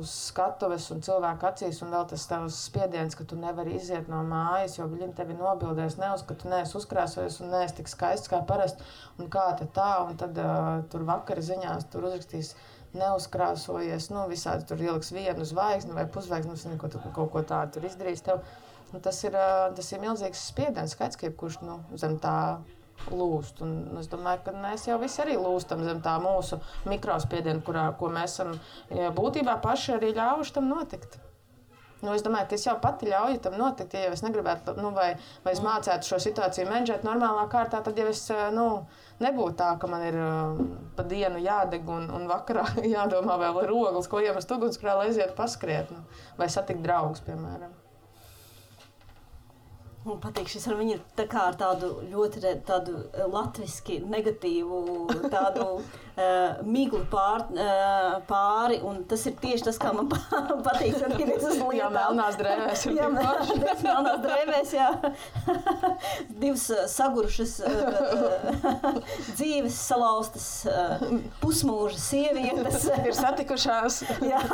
uz skatuves un cilvēku acīs, un vēl tas tavs spiediens, ka tu nevari iziet no mājas, jo viņi tevi nobildēs, ka tu neesi uzkrāsojies un neesi tik skaists kā parasti, un kā tā, un tad tur vakara ziņās tur uzrakstīs neuzkrāsojies, visādi tur ieliks vienu zvaigzni vai pusvaigzni, kaut ko tādu tur izdarīs tev. Un tas ir milzīgs spiediens, skaidrs, ka jebkurš zem tā lūst. Un es domāju, ka mēs jau visi arī lūstam zem tā mūsu mikrospiedienu, ko mēs esam būtībā paši arī ļaujuši tam notikt. Es domāju, ka es jau pati ļauju tam notikt, ja es negribētu, vai es mācētu šo situāciju menedžēt normālā kārtā, tad jau es nebūtu tā, ka man ir pa dienu jādeg un vakarā jādomā vēl ir ogles, ko iemest ugunsgrēlā, lai aiziet paskriet, vai satikt draugus, piemēram. Man patīk, šis ar viņu ir ar tādu ļoti tādu latviski negatīvu, tādu miglu pāri, un tas ir tieši tas, kā man patīk, kad ir uz lietām. Jā, melnās drēvēs ir tik paši. Melnās drēvēs, jā. 2 sagurušas dzīves salauztas pusmūža sievietes. Ir satikušās. Jā,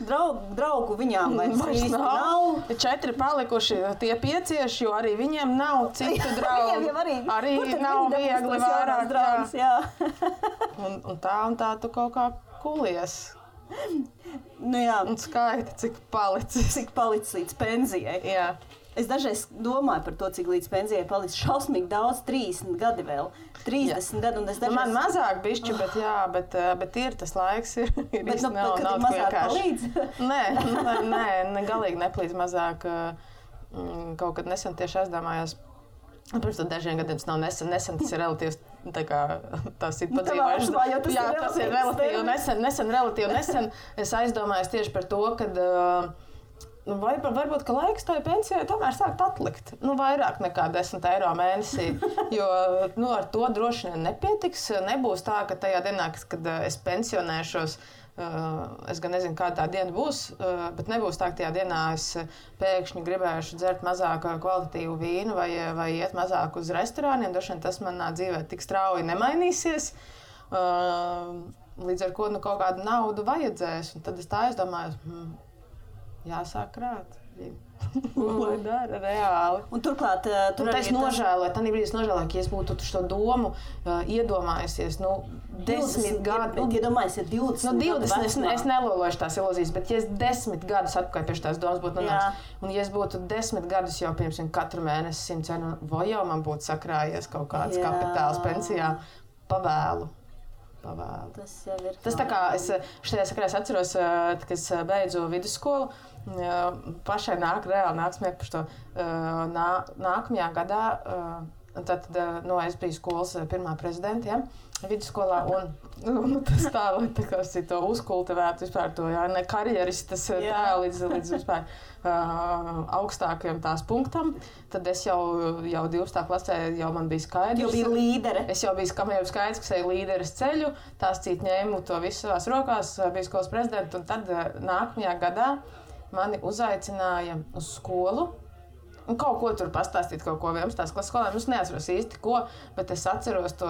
draugu viņām vairs nav. 4 palikuši tie 5, jo arī viņiem nav citu draugu. Arī nav viegli vairāk. Draugs, jā. Un tā tu kaut kā kulies. Jā. Un skaiti, cik palicis. Cik palicis līdz pensijai. Jā. Es dažreiz domāju par to, cik līdz pensijai palicis šausmīgi daudz, 30 gadi vēl. 30 gadi, un es dažreiz... Man mazāk bišķi, bet ir tas laiks, ir īsti nav mazāk palīdz? Nē, galīgi neplīdz mazāk. Kaut kad nesen tieši aizdomājos. Pirms tam dažiem gadiem tas nav nesen, tas ir relatīvs, tas ir padzīvojuši. Jā, tas ir relatīvi nesen. Es aizdomājos tieši par to, kad varbūt, ka laiks tai pensijai tomēr sākt atlikt. Vairāk nekā 10 eiro mēnesī, jo ar to droši vien nepietiks. Nebūs tā, ka tajā dienā, kad es pensionēšos, es gan nezinu, kāda tā diena būs, bet nebūs tā, ka tajā dienā es pēkšņi gribēšu dzert mazāk kvalitatīvu vīnu vai iet mazāk uz restorāniem. Droši vien tas manā dzīvē tik strauji nemainīsies, līdz ar ko kaut kādu naudu vajadzēs. Un tad es tā aizdomājos, jāsāk krāt. Lai dara reāli. Un turklāt, es nožēloju, tā brīdī es nožēloju, ka es būtu šo domu iedomājusies, 10 gadu. Iedomājusies 20. Es nelološu tās ilūzijas, bet ja es 10 gadus atpakaļ pie tās domas būtu nonācis, un ja es būtu 10 gadus jau pirms katru mēnesi 100 eiro, vai jau man būtu sakrājies kaut kāds kapitāls pensijā, pavēlu. Tas jau ir. Tas tā kā es šajā sakarā atceros, kad es beidzu vidusskolu, pašai reāli nāk smieklīgi par to. Nākamajā gadā Tad es biju skolas pirmā prezidenta, ja, vidusskolā, un tas tā kā to uzkultivētu vispār to, ne karjeristas tā līdz vispār augstākajam tās punktam. Tad es jau 12. klasē jau man bija skaidrs. Jau bija līdere. Es jau biju skaidrs, ka eju līderes ceļu, tās cīt ņēmu to visu savās rokās, biju skolas prezidenta, un tad nākamajā gadā mani uzaicināja uz skolu. Un kaut ko tur pastāstīt, kaut ko 11. klases skolēniem. Es neatceros īsti ko, bet es atceros to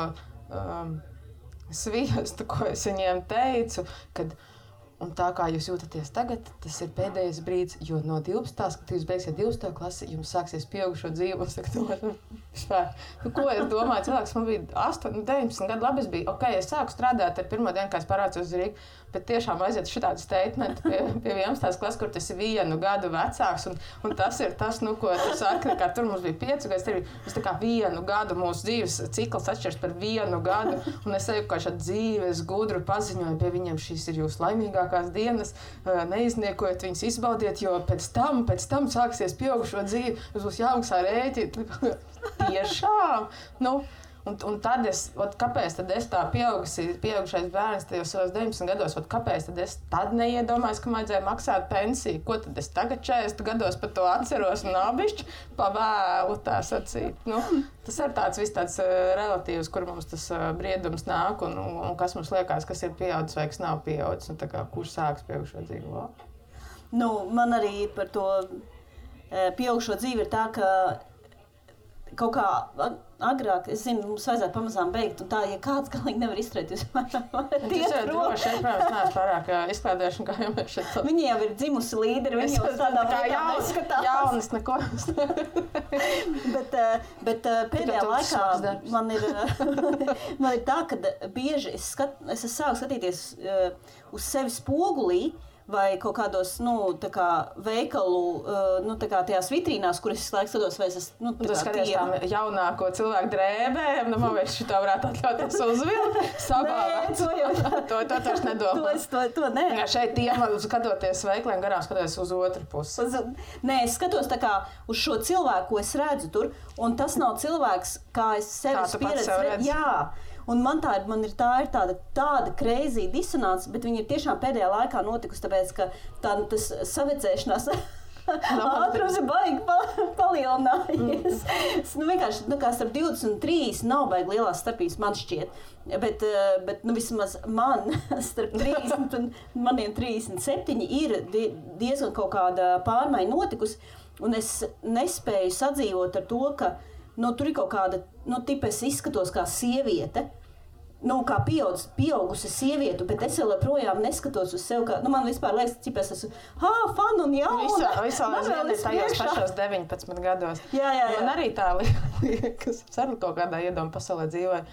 sviestu, ko es viņiem teicu, kad un tā kā jūs jūtaties tagad, tas ir pēdējais brīdis, jo no 12. kad jūs beigsiet 12. klasi, jums sāksies pieaugušo dzīvi. Un saka, ko es domāju, cilvēks man bija 8, 19 gadu, labi es biju, es sāku strādāt ar pirmo dienu, kā es parācos uz Rīgu, bet tiešām aiziet šitādu statementu pie 11. klases, kur tas ir 1 gadu vecāks, un tas ir tas, ko tu saki, kā tur mums bija 5 gadi, tas tā kā 1 gadu mūsu dzīves cikls atšķirs par 1 gadu, un es eju kā šādu dzīves gudru paziņoju pie viņiem, šīs ir jūsu laimīgākās dienas, neizniekojiet viņas, izbaudiet, jo pēc tam sāksies pieaugušo dzīvi, jūs būs jāmaksā rēķi. Tiešām! Un tad kāpēc tad es tā pieaugušais bērns tajos savos 19 gados, kāpēc tad es tad neiedomājos, ka vajadzēja maksāt pensiju? Ko tad es tagad 40 gados par to atceros un nabišķi pavēlu tā sacīt? Tas ir tāds relatīvs, kur mums tas briedums nāk un kas mums liekas, kas ir pieaudzis vai kas nav pieaudzis, un tā kā kurš sāks pieaugušo dzīvi? Man arī par to pieaugušo dzīvi ir tā, ka kaut kā agrāk, es zinu, mums vajadzētu pamazām beigt, un tā, ja kāds galīgi nevar izturēt, jūs varat iet prom. Tas ir droši, es, protams, neesmu pārāk izklādējuši, kā jau mēs šeit. Viņi jau ir dzimusi līderi, viņi jau tādā veidā neskatās. Jaunas neko. Bet pēdējā laikā man ir tā, ka bieži es sāku skatīties uz sevi spogulī, vai kaut kādos, veikalu, tajās vitrīnās, kur es laiks skatos, vai es esmu, Tu skaties tām jaunāko cilvēku drēbēm, man vairs šitā varētu atļauties uzvilkt, sabāvēt. Nē, to taču nedomā. To nē. Jā, šeit tiem, skatoties veikliem garām, skatoties uz otru pusi. Nē, es skatos tā kā uz šo cilvēku, ko es redzu tur, un tas nav cilvēks, kā es sevis pieredzu. Jā. Un man ir tāda crazy disonance, bet viņa ir tiešām pēdējā laikā notikusi, tāpēc, ka tas savedzēšanās ātrums ir baigi palielinājies. Vienkārši, kā starp 20 un 30 nav baigi lielās starpības, man šķiet. Bet vismaz man starp 30 un maniem 37 ir diezgan kaut kāda pārmaiņa notikusi, un es nespēju sadzīvot ar to, ka tur ir kaut kāda, tipa es izskatos kā sieviete, kā pieaugusi sieviete, bet es vēl projām neskatos uz sevi, kā, man vispār liekas, cik es esmu, fan un jauna. Visā ir tajos pašos 19 gados. Jā. Man arī tā liekas, es arī kaut kādā iedomu pasaulē dzīvoju.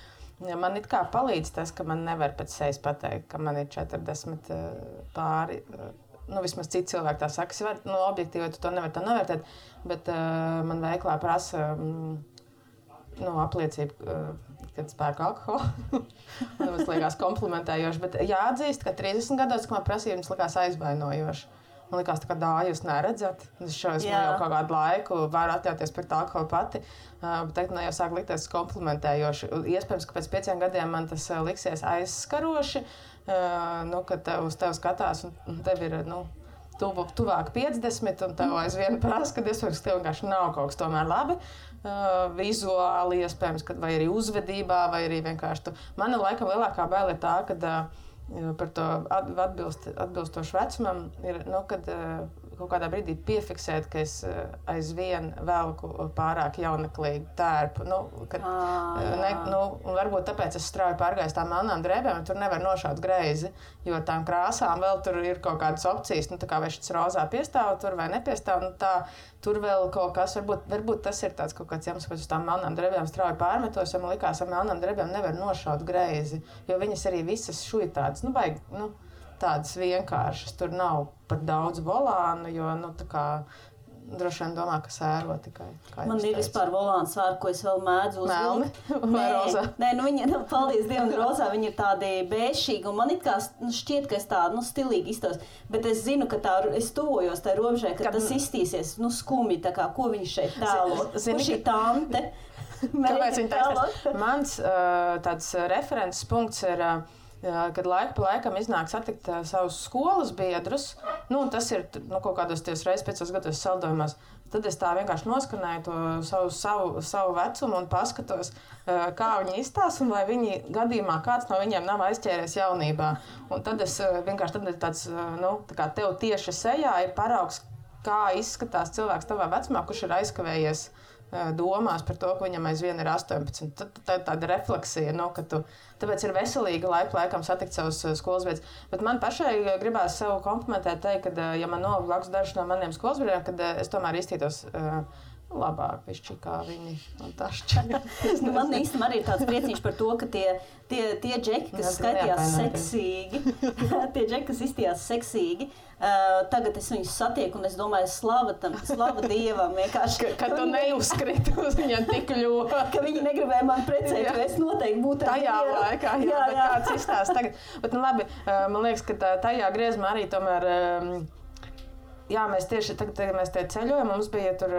Man it kā palīdz tas, ka man nevar pēc sejas pateikt, ka man ir 40 pāri. Vismaz citi cilvēki tā saka, objektīvi tu to nevar tā novērtēt, bet man veiklā prasa apliecību, kad spēku alkoholu. Man liekas komplimentējoši, bet jāatzīst, ka 30 gados, kad man prasīja, viņas likās aizvainojoši. Man likās, tā kā jūs neredzat. Es jau kaut kādu laiku varu atļauties pret alkoholu pati, bet tagad jau sāk likties komplimentējoši. Iespējams, ka pēc 5 gadiem man tas liksies aizskaroši, kad uz tevi skatās un tev ir, tuvāk 50, un tev aizvien prasa, kad iespējams, ka tev vienkārši nav kaut kas tomēr labi. Vizuāli, iespējams, vai arī uzvedībā, vai arī vienkārši Mana laikam lielākā baila ir tā, kad par to atbilstošu vecumam ir, kad kaut kādā brīdī piefiksēt, ka es aizvien velku pārāk jauneklīgu tērpu. Un varbūt tāpēc es strauji pārgāju tām melnām drēbēm, un tur nevar nošaut greizi, jo tām krāsām vēl tur ir kaut kādas opcijas, kā vai šis rozā piestāv tur vai nepiestāv, tur vēl kaut kas, varbūt tas ir tāds kaut kāds iemesls, kāpēc uz tām melnām drēbēm strauji pārmetos, jo man likās, ar melnām drēbēm nevar nošaut greizi, jo viņas arī visas šuitādas, tādas vienkāršas, tur nav par daudz volānu, jo, droši vien domā, ka sēro tikai. Man ir vispār volāna sēra, ko es vēl mēdzu uzvilkt. Melni vai rozā? Nē, viņa, paldies Dievam, rozā, viņa ir tādi bēšīgi, un man it kā šķiet, ka es tā, stilīgi iztos, bet es zinu, ka es tuvojos tai robežai, ka tas iztīsies, skumji, tā kā, ko viņš šeit tēlo. Kur šī tante? Kāpēc viņi taisās? Mans tāds references punkts ir, kad laiku pa laikam iznāk satikt savus skolas biedrus, tas ir kaut kādos reizes 5 gados saldojumos, tad es tā vienkārši noskanēju to savu vecumu un paskatos, kā viņi izstās un vai viņi gadījumā kāds no viņiem nav aizķēries jaunībā. Un tad es vienkārši tad ir tāds, tā kā tev tieši sejā ir paraugs, kā izskatās cilvēks tavā vecumā, kurš ir aizkavējies domās par to, ka viņam aizvien ir 18. Tā ir tāda refleksija, tāpēc ir veselīgi laikam satikt savus skolas biedrus. Bet man pašai gribās sev komplimentēt, teikt, ka, ja man nav blakus daži no maniem skolas biedriem, kad es tomēr iztītos labāk, pišķi, kā viņi un tā šķiet. Man īstenībā arī ir tāds priecīgs par to, ka tie džeki, kas skatījās seksīgi, tie džeki, kas izstījās seksīgi, tagad es viņus satieku un es domāju, slava Dievam vienkārši. Ka tu neuzkriti uz viņiem tik ļoti. Ka viņi negribēja man precēt, jo es noteikti būtu tajā laikā, jā, bet kāds izstās tagad. Bet labi, man liekas, ka tajā griezumā arī tomēr, mēs tieši tagad mēs tie ceļojam, mums bija tur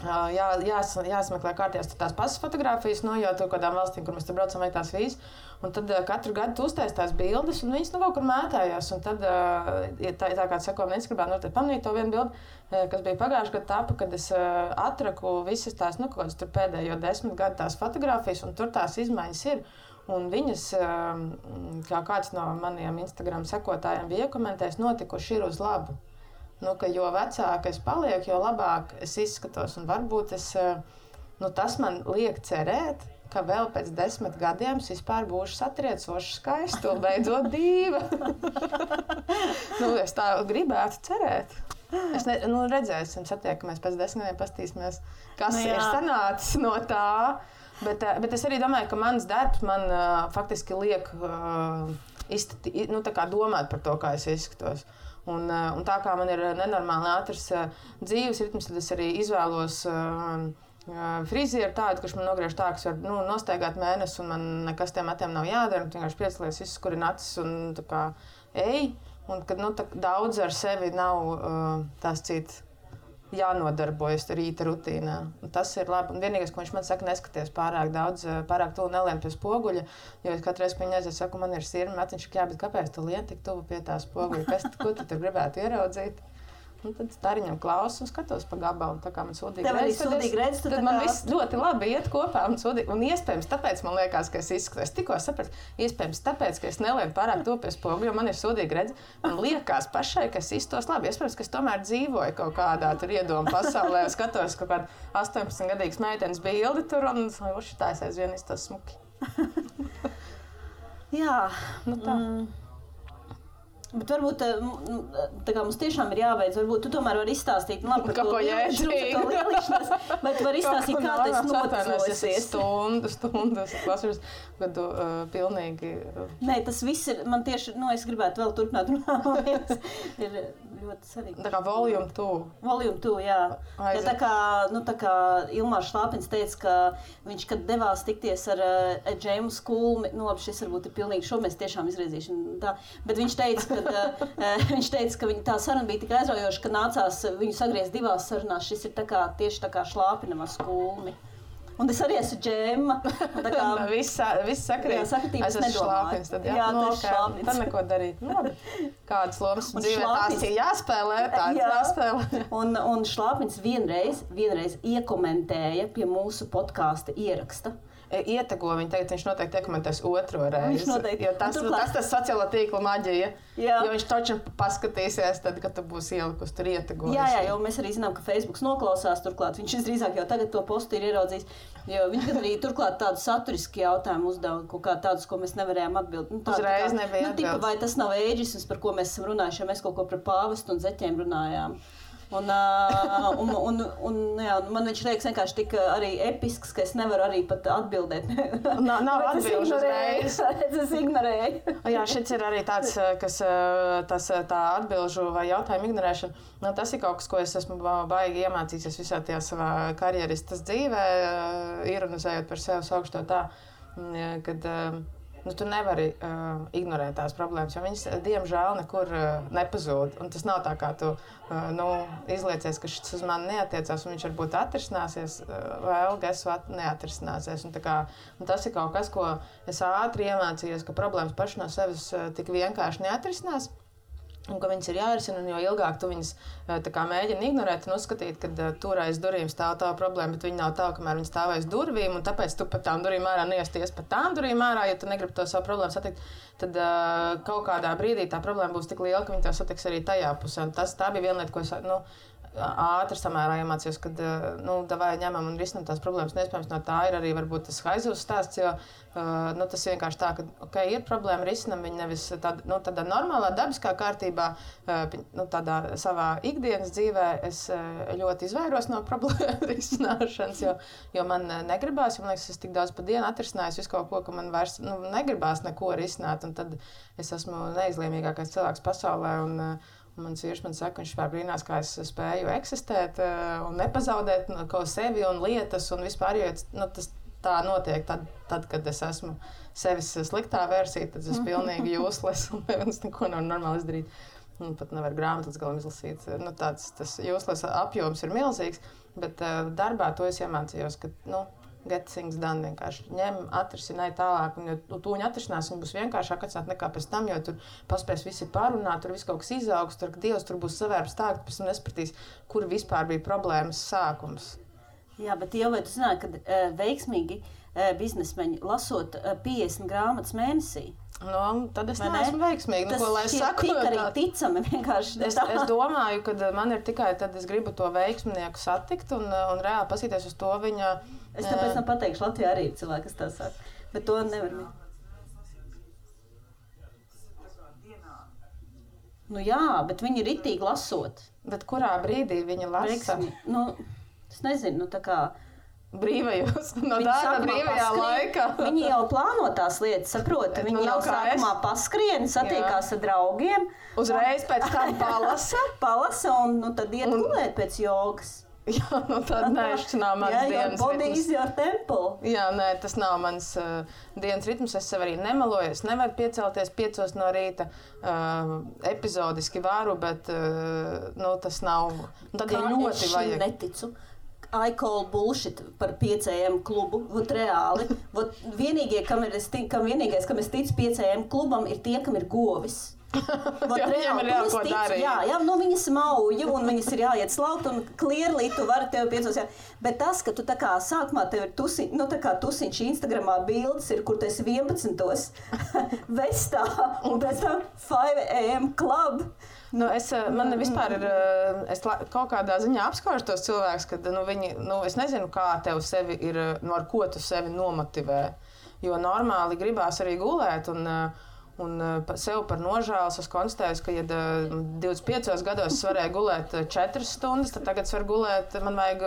jāsmeklē kārtījās tās pasas fotogrāfijas, jo tur kādām valstīm, kur mēs tur braucam, vajag tās vīzes. Un tad katru gadu tu uztais tās bildes, un viņas kaut kur mētājās. Un tad, tā kā sako, man Instagramā noteikti pamanīja to vienu bildi, kas bija pagājuši gadu tapa, kad es atraku visas tās, kaut kādas tur pēdējo 10 gadu tās fotogrāfijas, un tur tās izmaiņas ir. Un viņas, kā kāds no maniem Instagram sekotājiem bija iekomentējis, notikuši ir uz labu. Ka jo vecāk es palieku, jo labāk es izskatos. Un varbūt tas man liek cerēt, ka vēl pēc 10 gadiem es vispār būšu satriecoši skaistu un beidzot dīva. Es tā gribētu cerēt. Redzēsim, satiekamies pēc 10 gadiem, pastīsimies, kas ir sanācis no tā. Bet es arī domāju, ka mans darbs man faktiski liek tā kā domāt par to, kā es izskatos. Un tā kā man ir nenormāli ātrs dzīves ritms, tad es arī izvēlos frizieru tādu, kurš man nogriež tā, kas var nostaigāt mēnesi, un man nekas tiem matiem nav jādara. Vienkārši piecelies, izskurin acis un tā kā ej. Un kad daudz ar sevi nav tās cits jānodarbojas rīta rutīnā. Un tas ir labi. Un vienīgais, ko viņš man saka, neskaties pārāk daudz, pārāk tuvu nelien pie spoguļa, jo es katru reizi, kad viņi aiziet, saku, man ir sirma, matiņš, bet kāpēc tu lien tik tuvu pie tā spoguļa? Ko tu tur gribētu ieraudzīt? Un tad stariņam klausu un skatos pa gabalu, tā kā man sūdīgi redz. Tad man viss ļoti labi iet kopā un iespējams tāpēc man liekas, ka es izskatos. Tikko sapratu, iespējams tāpēc, ka es nelienu pārāk to pie spoguļa, jo man ir sūdīgi redz. Man liekas pašai, ka es izskatos labi. Iespējams, ka es tomēr dzīvoju kaut kādā tur iedomu pasaulē, skatos kaut kādu 18-gadīgas meitenes bildi tur un tā es aizvien izstos smuki. Jā, tā. Bet varbūt tā kā mums tiešām ir jābeidz, varbūt tu tomēr vari izstāstīt par to lielišanos, vai tu vari izstāstīt, kā tas noticosies. Stundas, klausījos, kad tu pilnīgi... Nē, tas viss ir, man tieši, es gribētu vēl turpināt runāt, ir ļoti svarīgi. Tā kā volume 2. Volume 2, jā. Ja tā kā Ilmārs Šlāpins teica, ka viņš, kad devās tikties ar Džēmu Skulmi, labi, šis varbūt ir pilnīgi šo mēs tiešām izrēzīšanu, tā, bet viņš teica, ka tā saruna bija tik aizraujoša, ka nācās viņu sagriezt 2 sarunās. Šis ir tieši tā kā Šlāpinam ar Skulmi. Un es arī esmu Džemma. Viss sakrīt. Jā, sakritības nedomāju. Tad Šlāpins. Tad neko darīt. Kādas lomas dzīvē tās ir jāspēlē, tādas jāspēlē. Un Šlāpins vienreiz iekomentēja pie mūsu podkāsta ieraksta. Ietego viņu, tagad viņš noteikti iekomentēs 2. reizi. Viņš noteikti. Jo tas sociālo tīklu maģija. Jo viņš taču paskatīsies, tad, kad tu būsi ielikus tur ietegojis. Jā, jo mēs arī zinām, ka Facebooks noklausās turklāt. Viņš visdrīzāk jau tagad to postu ir ieraudzījis. Jo viņš arī turklāt tādu saturisku jautājumu uzdeva, kaut kā tādus, ko mēs nevarējām atbildēt. Uzreiz nebija atbildes. Vai tas nav ēģisms, par ko mēs esam runājuši, ja mēs kaut ko par pāvestu un zeķiem runājām. Un man viņš liekas vienkārši tik arī episks, ka es nevaru arī pat atbildēt. Nav atbilžu uzreiz. Es ignorēju. Jā, šis ir arī tāds, kas tā atbilžu vai jautājumu ignorēšana. Tas ir kaut kas, ko es esmu baigi iemācījies visā tajā savā karjeristas dzīvē, ironizējot par sevi, saukšu to tā, kad tu nevari ignorēt tās problēmas, jo viņas, diemžēl, nekur nepazūd. Un tas nav tā, kā tu izliecies, ka šis uz mani neatiecās, un viņš varbūt atrisināsies, vēl neatrisināsies. Un tas ir kaut kas, ko es ātri iemācījos, ka problēmas paši no sevis tik vienkārši neatrisinās. Un ka viņas ir jārisina, un jo ilgāk tu viņas mēģini ignorēt un uzskatīt, ka tur aiz durvīm stāv tā problēma, bet viņi nav tā, kamēr viņi stāv aiz durvīm, un tāpēc tu pat tām durvīm ārā neiesties pat tām durvīm ārā, ja tu negribi to savu problēmu satikt, tad kaut kādā brīdī tā problēma būs tik liela, ka viņi tev satiks arī tajā pusē. Un tā bija viena lieta, ko es ātri samērā iemācījos, kad davai ņemam un risinam tās problēmas. Neiespējams, no tā ir arī varbūt tas haizuvs stāsts, jo tas vienkārši tā, ka ir problēma, risinam viņu nevis tādā normālā, dabiskā kārtībā, tādā savā ikdienas dzīvē es ļoti izvairos no problēmu risināšanas, jo man negribās, jo man liekas, es tik daudz pa dienu atrisinājos visu kaut ko, ka man vairs negribās neko risināt, un tad es esmu neizlēmīgākais cilvēks pasaulē, un mans vīrs man saka, viņš vispār brīnās, kā es spēju eksistēt un nepazaudēt ko sevi un lietas un vispār, jo tas tā notiek tad, kad es esmu sevis sliktā versija, tad es pilnīgi useless un es neko nevaru normāli izdarīt. Un pat nevaru grāmatas galam izlasīt. Tas useless apjoms ir milzīgs, bet darbā to es iemācījos, ka, get things done vienkārši. Ņem, atrisināj tālāk, un jo tūņi atrisinās, viņi būs vienkāršāk atcināt nekā pēc tam, jo tur paspēs visi parunāt, tur viss kaut kas izaugs, tur Dievs tur būs savērps tā, ka pēc tam nespratīs, kur vispār bija problēmas sākums. Jā, bet jau vai tu zināji, ka veiksmīgi biznesmeņi lasot 50 grāmatas mēnesī? Tad es neesmu veiksmīgi. Tas tik arī ticami vienkārši. Es domāju, ka man ir tikai tad es gribu to veiksminieku satikt un reāli pasīties uz to viņa. Es tāpēc pateikšu, Latvijā arī ir cilvēki, kas tā saka, bet to nevar. Jā, bet viņi ir ritīgi lasot. Bet kurā brīdī viņi lasa? Es nezinu, tā kā brīvajos, darba brīvajā laikā. Viņi jau plāno tās lietas, saproti. Viņi jau sākumā paskrien, satiekās ar draugiem. Uzreiz pēc tam palasa un tad iet gulēt pēc jogas. Jā, tad šis nav mans dienas ritms. Body is your temple. Jā, tas nav mans dienas ritms. Es sev arī nemeloju. Es nevaru piecelties 5 no rīta. Epizodiski varu, bet tas nav. Tad jau ļoti vajag. Neticu. I call bullshit par 5 AM klubu. Reāli. Vienīgie, kam es ticu 5 AM klubam, ir tie, kam ir govis. Viņam ir jāko darīt. Jā, viņas mauju un viņas ir jāiet slaukt un clearly tu vari tev 5. Bet tas, ka tu tā kā sākumā tev ir tusiņš Instagramā bildes ir, kur tu esi 11. vestā un pēc tam 5 AM club. Man vispār ir, es kaut kādā ziņā apskaužu tos cilvēkus, kad viņi, es nezinu, kā tev sevi ir, ar ko tu sevi nomotivē, jo normāli gribās arī gulēt un sev par nožēlas es konstatēju, ka, ja 25 gados es varēju gulēt 4 stundas, tad tagad es varu gulēt, man vajag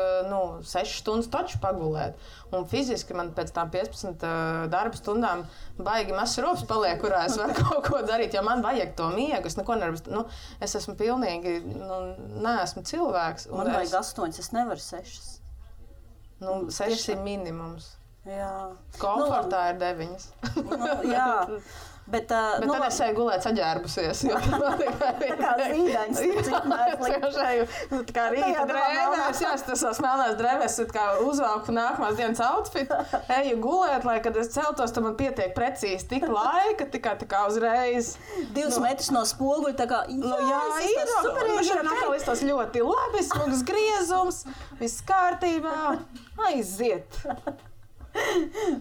6 stundas taču pagulēt. Un fiziski man pēc tām 15 darba stundām baigi mazs rops paliek, kurā es varu kaut ko darīt, jo man vajag to miegu. Es neko nevaru, es esmu pilnīgi, neesmu cilvēks. Man vajag 8, es nevaru 6. 6 ir minimums. Jā. Komfortā ir 9. Jā. Bet tad es eju gulēt saģērbusies. Tā kā zīdaņas, cik mērs kā rīta drēvēs, tas smelnās drēvēs, kā uzvalku nākamās dienas outfit, eju gulēt, lai, kad es celtos, tad man pietiek precīzi tik laika, tikai tā kā uzreiz. 2 metrus no spoguļa, tā kā, ir atkal izstos ļoti labi, smugs griezums, viss kārtībā, aiziet.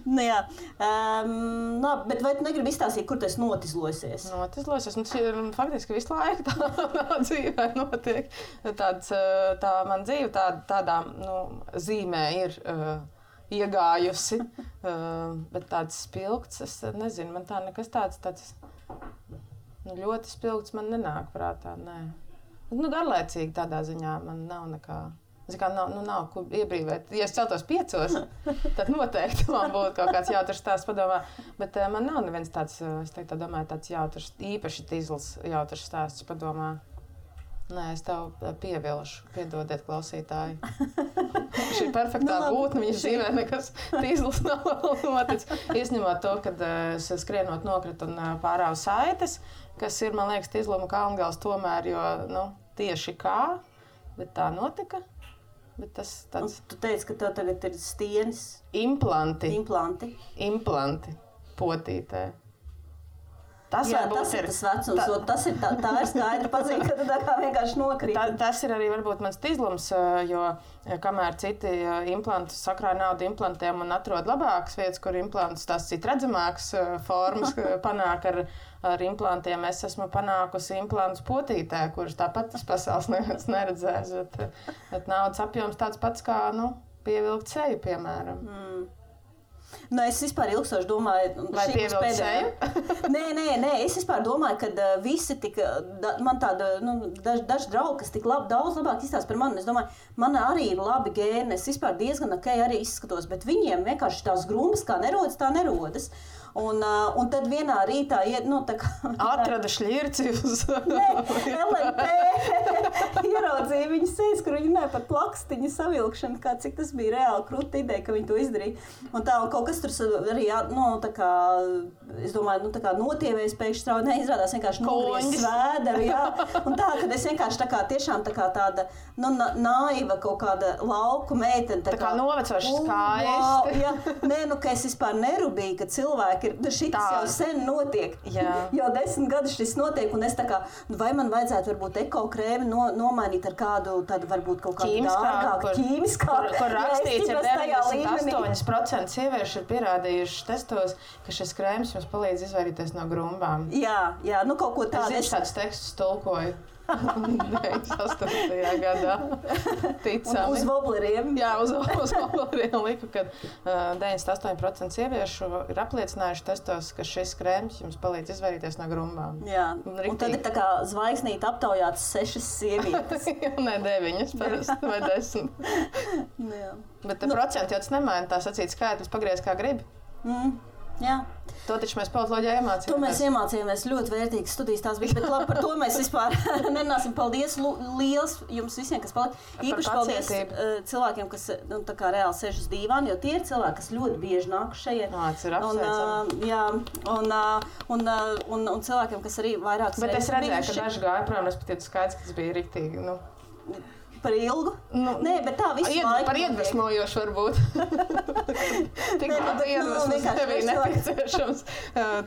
Jā. Bet vai tu negribi izstāstīt, kur tu esi notizlosies? Notizlosies. Faktiski visu laiku tā dzīvē notiek. Tā man dzīve tādā zīmē ir iegājusi. Bet tāds spilgts, es nezinu, man tā nekas tāds ļoti spilgts man nenāk prātā. Nē. Garlaicīgi tādā ziņā man nav nekā. Nav ko iebrīvēt. Ja es celtos 5, tad noteikti man būtu kaut kāds jautrs stāsts padomā. Bet man nav neviens tāds, es domāju, tāds jautrs, īpaši tīzls jautrs stāsts padomā. Nē, es tev pievilšu. Piedodiet, klausītāji. Šī perfektā būtne, viņas dzīvē nekas tīzlis nav noticis. Izņemot to, kad es skrienot nokritu un pārāvu saites, kas ir, man liekas, Tīzluma kalngals tomēr, jo, tieši kā, bet tā notika. Bet tas tāds... Tu teici, ka tev tagad ir stienis. Implanti. Potītē. Tas ir tas vecums, tas ir tā ir skaidra pazīme, ka tu tā kā vienkārši nokrīt. Tas ir arī varbūt mans tīzlums, jo kamēr citi implantus sakrāja naudu implantiem un atrod labākas vietas, kur implantus tās citi redzamākas formas panāk ar implantiem, es esmu panākusi implantus potītē, kurš tāpat tas pasaules neviens neredzēs, bet naudas apjoms tāds pats kā, pievilkt seju, piemēram. Es vispār ilgstoši domāju, vai pievilkt seju? Nē, es vispār domāju, ka visi tik, man tāda, daži draugi, kas tik daudz labāk izstāsta par mani, es domāju, man arī ir labi gēni, es vispār diezgan arī izskatos, bet viņiem vienkārši tās grumbas kā nerodas, tā nerodas. Un tad vienā rītā tā kā... Atrada šļirci uz... LMP ieraudzīja viņas sejas, kur viņi runāja par plakstiņu savilkšanu, cik tas bija reāli krūta ideja, ka viņi to izdarīja. Un kaut kas tur arī, tā kā, es domāju, tā kā notievējas pēkšņi strauji, neizrādās vienkārši nogriezis svēderu, jā. Un tā, kad es vienkārši tā kā tiešām tā kā tāda, naiva kaut kāda lauku meitene. Tā kā novecoši skaisti. Jā, ka es vispār nerubīju, ka cilvēki šitas jau sen notiek. Jau 10 gadus šis notiek, un es tā kā, vai man vajadzētu varbūt ekokrēmi nomainīt ar kādu, tad varbūt kaut kādu dārgāku ķīmiskāku. Kur rakstīts, ja 98% sieviešu ir pierādījuši testos, ka šis krēms jums palīdz izvairīties no grumbām. Jā, kaut ko tādu. Es tādus tekstus tulkoju. 98. gadā. Ticami. Uz vobleriem. Jā, uz vobleriem liku, ka 98% sieviešu ir apliecinājuši testos, ka šis krēms jums palīdz izvairīties no grumbām. Jā, un tad ir tā kā zvaigznīti aptaujātas 6 sievietes. Ne 9, parasti, vai 10. Jā. Bet procenti jau tas nemaina, tā sacīt skaitlis pagriez kā gribi. Jā. To taču mēs politoloģijā iemācījāmies. To mēs iemācījāmies, ļoti vērtīgas studijas tās bija, bet labi, par to mēs vispār nerunāsim. Paldies liels jums visiem, kas palika. Īpaši paldies cilvēkiem, kas tā kā reāli sēž uz dīvāna, jo tie ir cilvēki, kas ļoti bieži nāk šeit. Tas ir apsveicami. Un cilvēkiem, kas arī vairākas reizes. Bet es redzēju, ka daži gāja prom, respektīvi skaidrs, ka tas bija riktīgi, Par ilgu? Nē, bet tā visu laiku. Par iedvesmojošu varbūt. Tik daudz iedvesmas nebija nepieciešams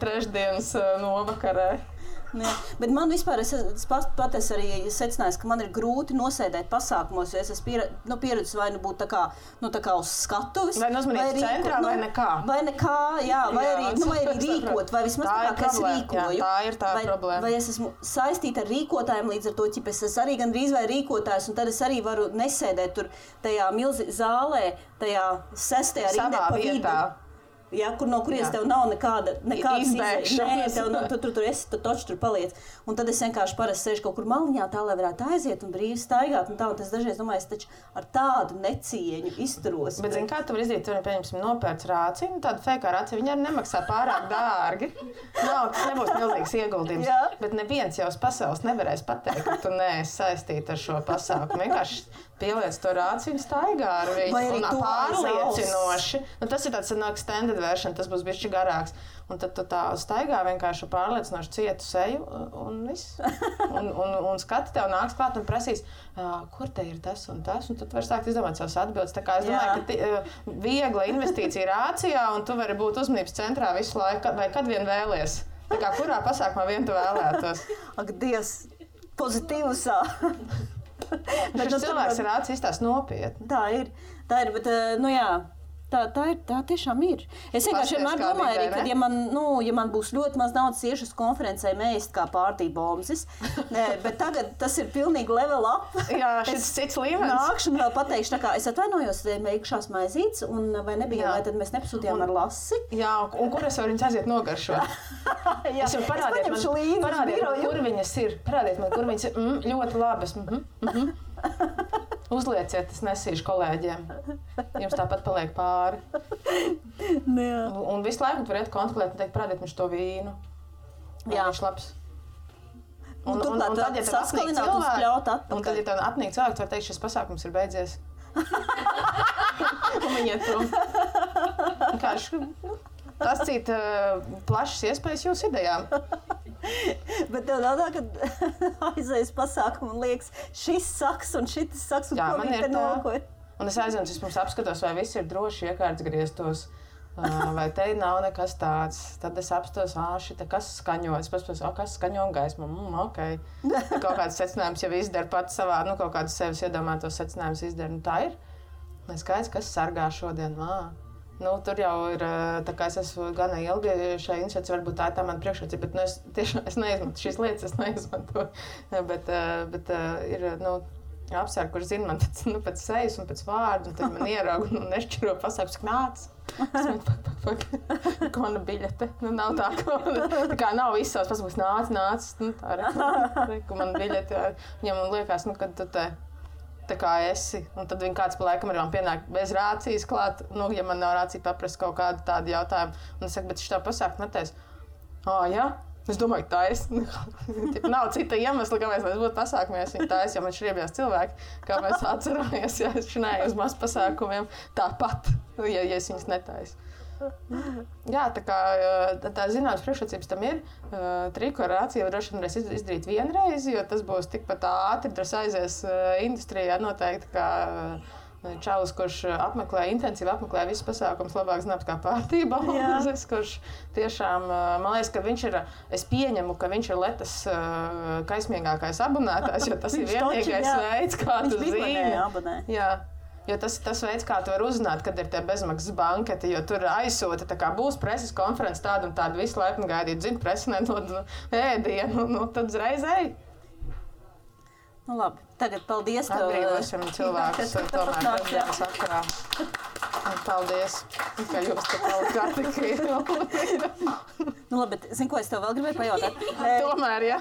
trešdienas novakarē. Jā, bet man vispār, es arī secināju, ka man ir grūti nosēdēt pasākumos, jo es esmu pieredzis vai būt tā kā uz skatuves. Vai uzmanības centrā, vai nekā. Vai nekā, jā, vai arī rīkot, vai vismaz tā kā es rīkoju. Jā, tā ir tā problēma. Vai es esmu saistīta ar rīkotājiem, līdz ar to, es esmu arī gandrīz vai rīkotājs, un tad es arī varu nesēdēt tur tajā zālē, tajā 6. rindē pa vidu. Ja, no kurienes tev nav nekāda izbēgšanas. Nē, tu esi, tu taču tur paliec. Un tad es vienkārši parasti sēžu kaut kur maliņā, tā, lai varētu aiziet un brīvi staigāt. Un es dažreiz domāju, es taču ar tādu necieņu izturos. Bet zini, kā tu vari izdarīt? Tu vari, pieņemsim, nopērc rāciju, tādu fejkā rāciju, viņa arī nemaksā pārāk dārgi. Tas nebūs milzīgs ieguldījums. Jā. Bet neviens jau uz pasaules nevarēs pateikt, ka tu neesi saistīta ar šo pasākumu. Vienkārši pieliec to rāciju un staigā ar viņu. Un pārliecinoši. Tas ir tāds extended version, tas būs bišķi garāks. Un tad tu tā staigā vienkārši pārliecinoši cietu seju un viss. Un skati tev nāks klāt un prasīs, kur te ir tas un tas. Un tad tu vari sākt izdomāt savas atbildes. Tā kā es domāju, ka viegla investīcija rācijā un tu vari būt uzmanības centrā visu laiku, vai kad vien vēlies. Tā kā kurā pasākumā vien tu vēlētos. Ak, Dievs, pozitīvusā. Bet šis cilvēks ir rācis izstās nopietni. Tā ir, bet, jā. Tā tiešām ir. Es vienkārši vienmēr domāju, arī, ka, ja man būs ļoti maz naudas iešu uz konferencē mēst kā pārtībomzis, bet tagad tas ir pilnīgi level up. Jā, šis cits līmenis. Nākšu un vēl pateikšu, tā kā es atvainojos, meikšās maizītes, un vai nebija, vai tad mēs nepasūtījām ar lasi. Jā, un kur es varu viņas aiziet nogaršot? Jā, es parādiet man, kur viņas ir. Parādiet man, kur viņas ir. Ļoti labas. Uzlieciet, es nesīšu kolēģiem. Jums tāpat paliek pāri. Un visu laiku tu varētu kontrolēt un teikt, parādiet viņš to vīnu. Jā. Viņš labs. Un tad, ja tev apnīk cilvēki, un tad, ja tev apnīk cilvēki, tu var teikt, šis pasākums ir beidzies. Un viņi iet prom. Tas cita plašas iespējas jūsu idejām. Bet tev nav tā, ka aizējas pasākumu un liekas, šis saks un šitis saks, un ko viņi te nokoja. Un es aizvienu, vispirms apskatos, vai viss ir droši iekārts grieztos, vai te nav nekas tāds. Tad es apstos, šita, kas skaņo. Es paspos, kas skaņo un gaismu. Ok. Kaut kāds secinājums jau izdara pats savā, kaut kādus sevis iedomātos secinājumus izdara. Tā ir. Es skaidrs, kas sargā šodien. Tur jau ir, tā kā es esmu gana ilgi šai iniciatīvai, varbūt tā ir tā mana priekšrocība, bet es tiešām neizmantoju šīs lietas, bet ir, apsvērti, kurš zina man pēc sejas un pēc vārdu, un tad man ierauga un nešķiro pasākums, nāc. Ko mana biļete? Nav tā, kā nav viss savs pasākums, nāc. Tā ir, ko mana biļete. Viņam liekas, kad tu te tā kā esi, un tad viņi kāds pa laikam arī man pienāk bez rācijas klāt, ja man nav rācija paprast kaut kādu tādu jautājumu. Un es saku, bet šitā pasākt netēs. Jā? Es domāju, tā es. Nav cita iemesla, kāpēc mēs būtu pasākumies. Viņa tā es, jo man šriebjās cilvēki, kā mēs atceramies, ja es šinēju uz maz pasākumiem tāpat, ja es viņas netāju. Jā, tā kā tā zināmas priekšrocības tam ir. Triku ar rāciju droši vien varēs izdarīt vienreiz, jo tas būs tikpat ātri, tas aizies industrijā noteikti, kā čalis, kurš intensīvi apmeklē visus pasākumus, labāk zināms kā pārtība. Kurš tiešām, man liekas, ka viņš ir, es pieņemu, ka viņš ir Letas kaismīgākais abonētājs, jo tas ir vienīgais veids, kā tu zini. Jo tas veids, kā tu vari uzzināt, kad ir tie bezmaksas banketi, jo tur aizsūta, tā kā būs preses konferences tāda un tāda, visu laipni gaidīt, zinu, presi nedod ēdienu, tad uzreiz ej. Labi, tagad paldies, ka atbrīvošam cilvēkus tomēr prezidents sakarā. Paldies, ka jūs te palikāt tik. Labi, bet zinu, ko es tev vēl gribēju pajautāt? Tomēr, jā.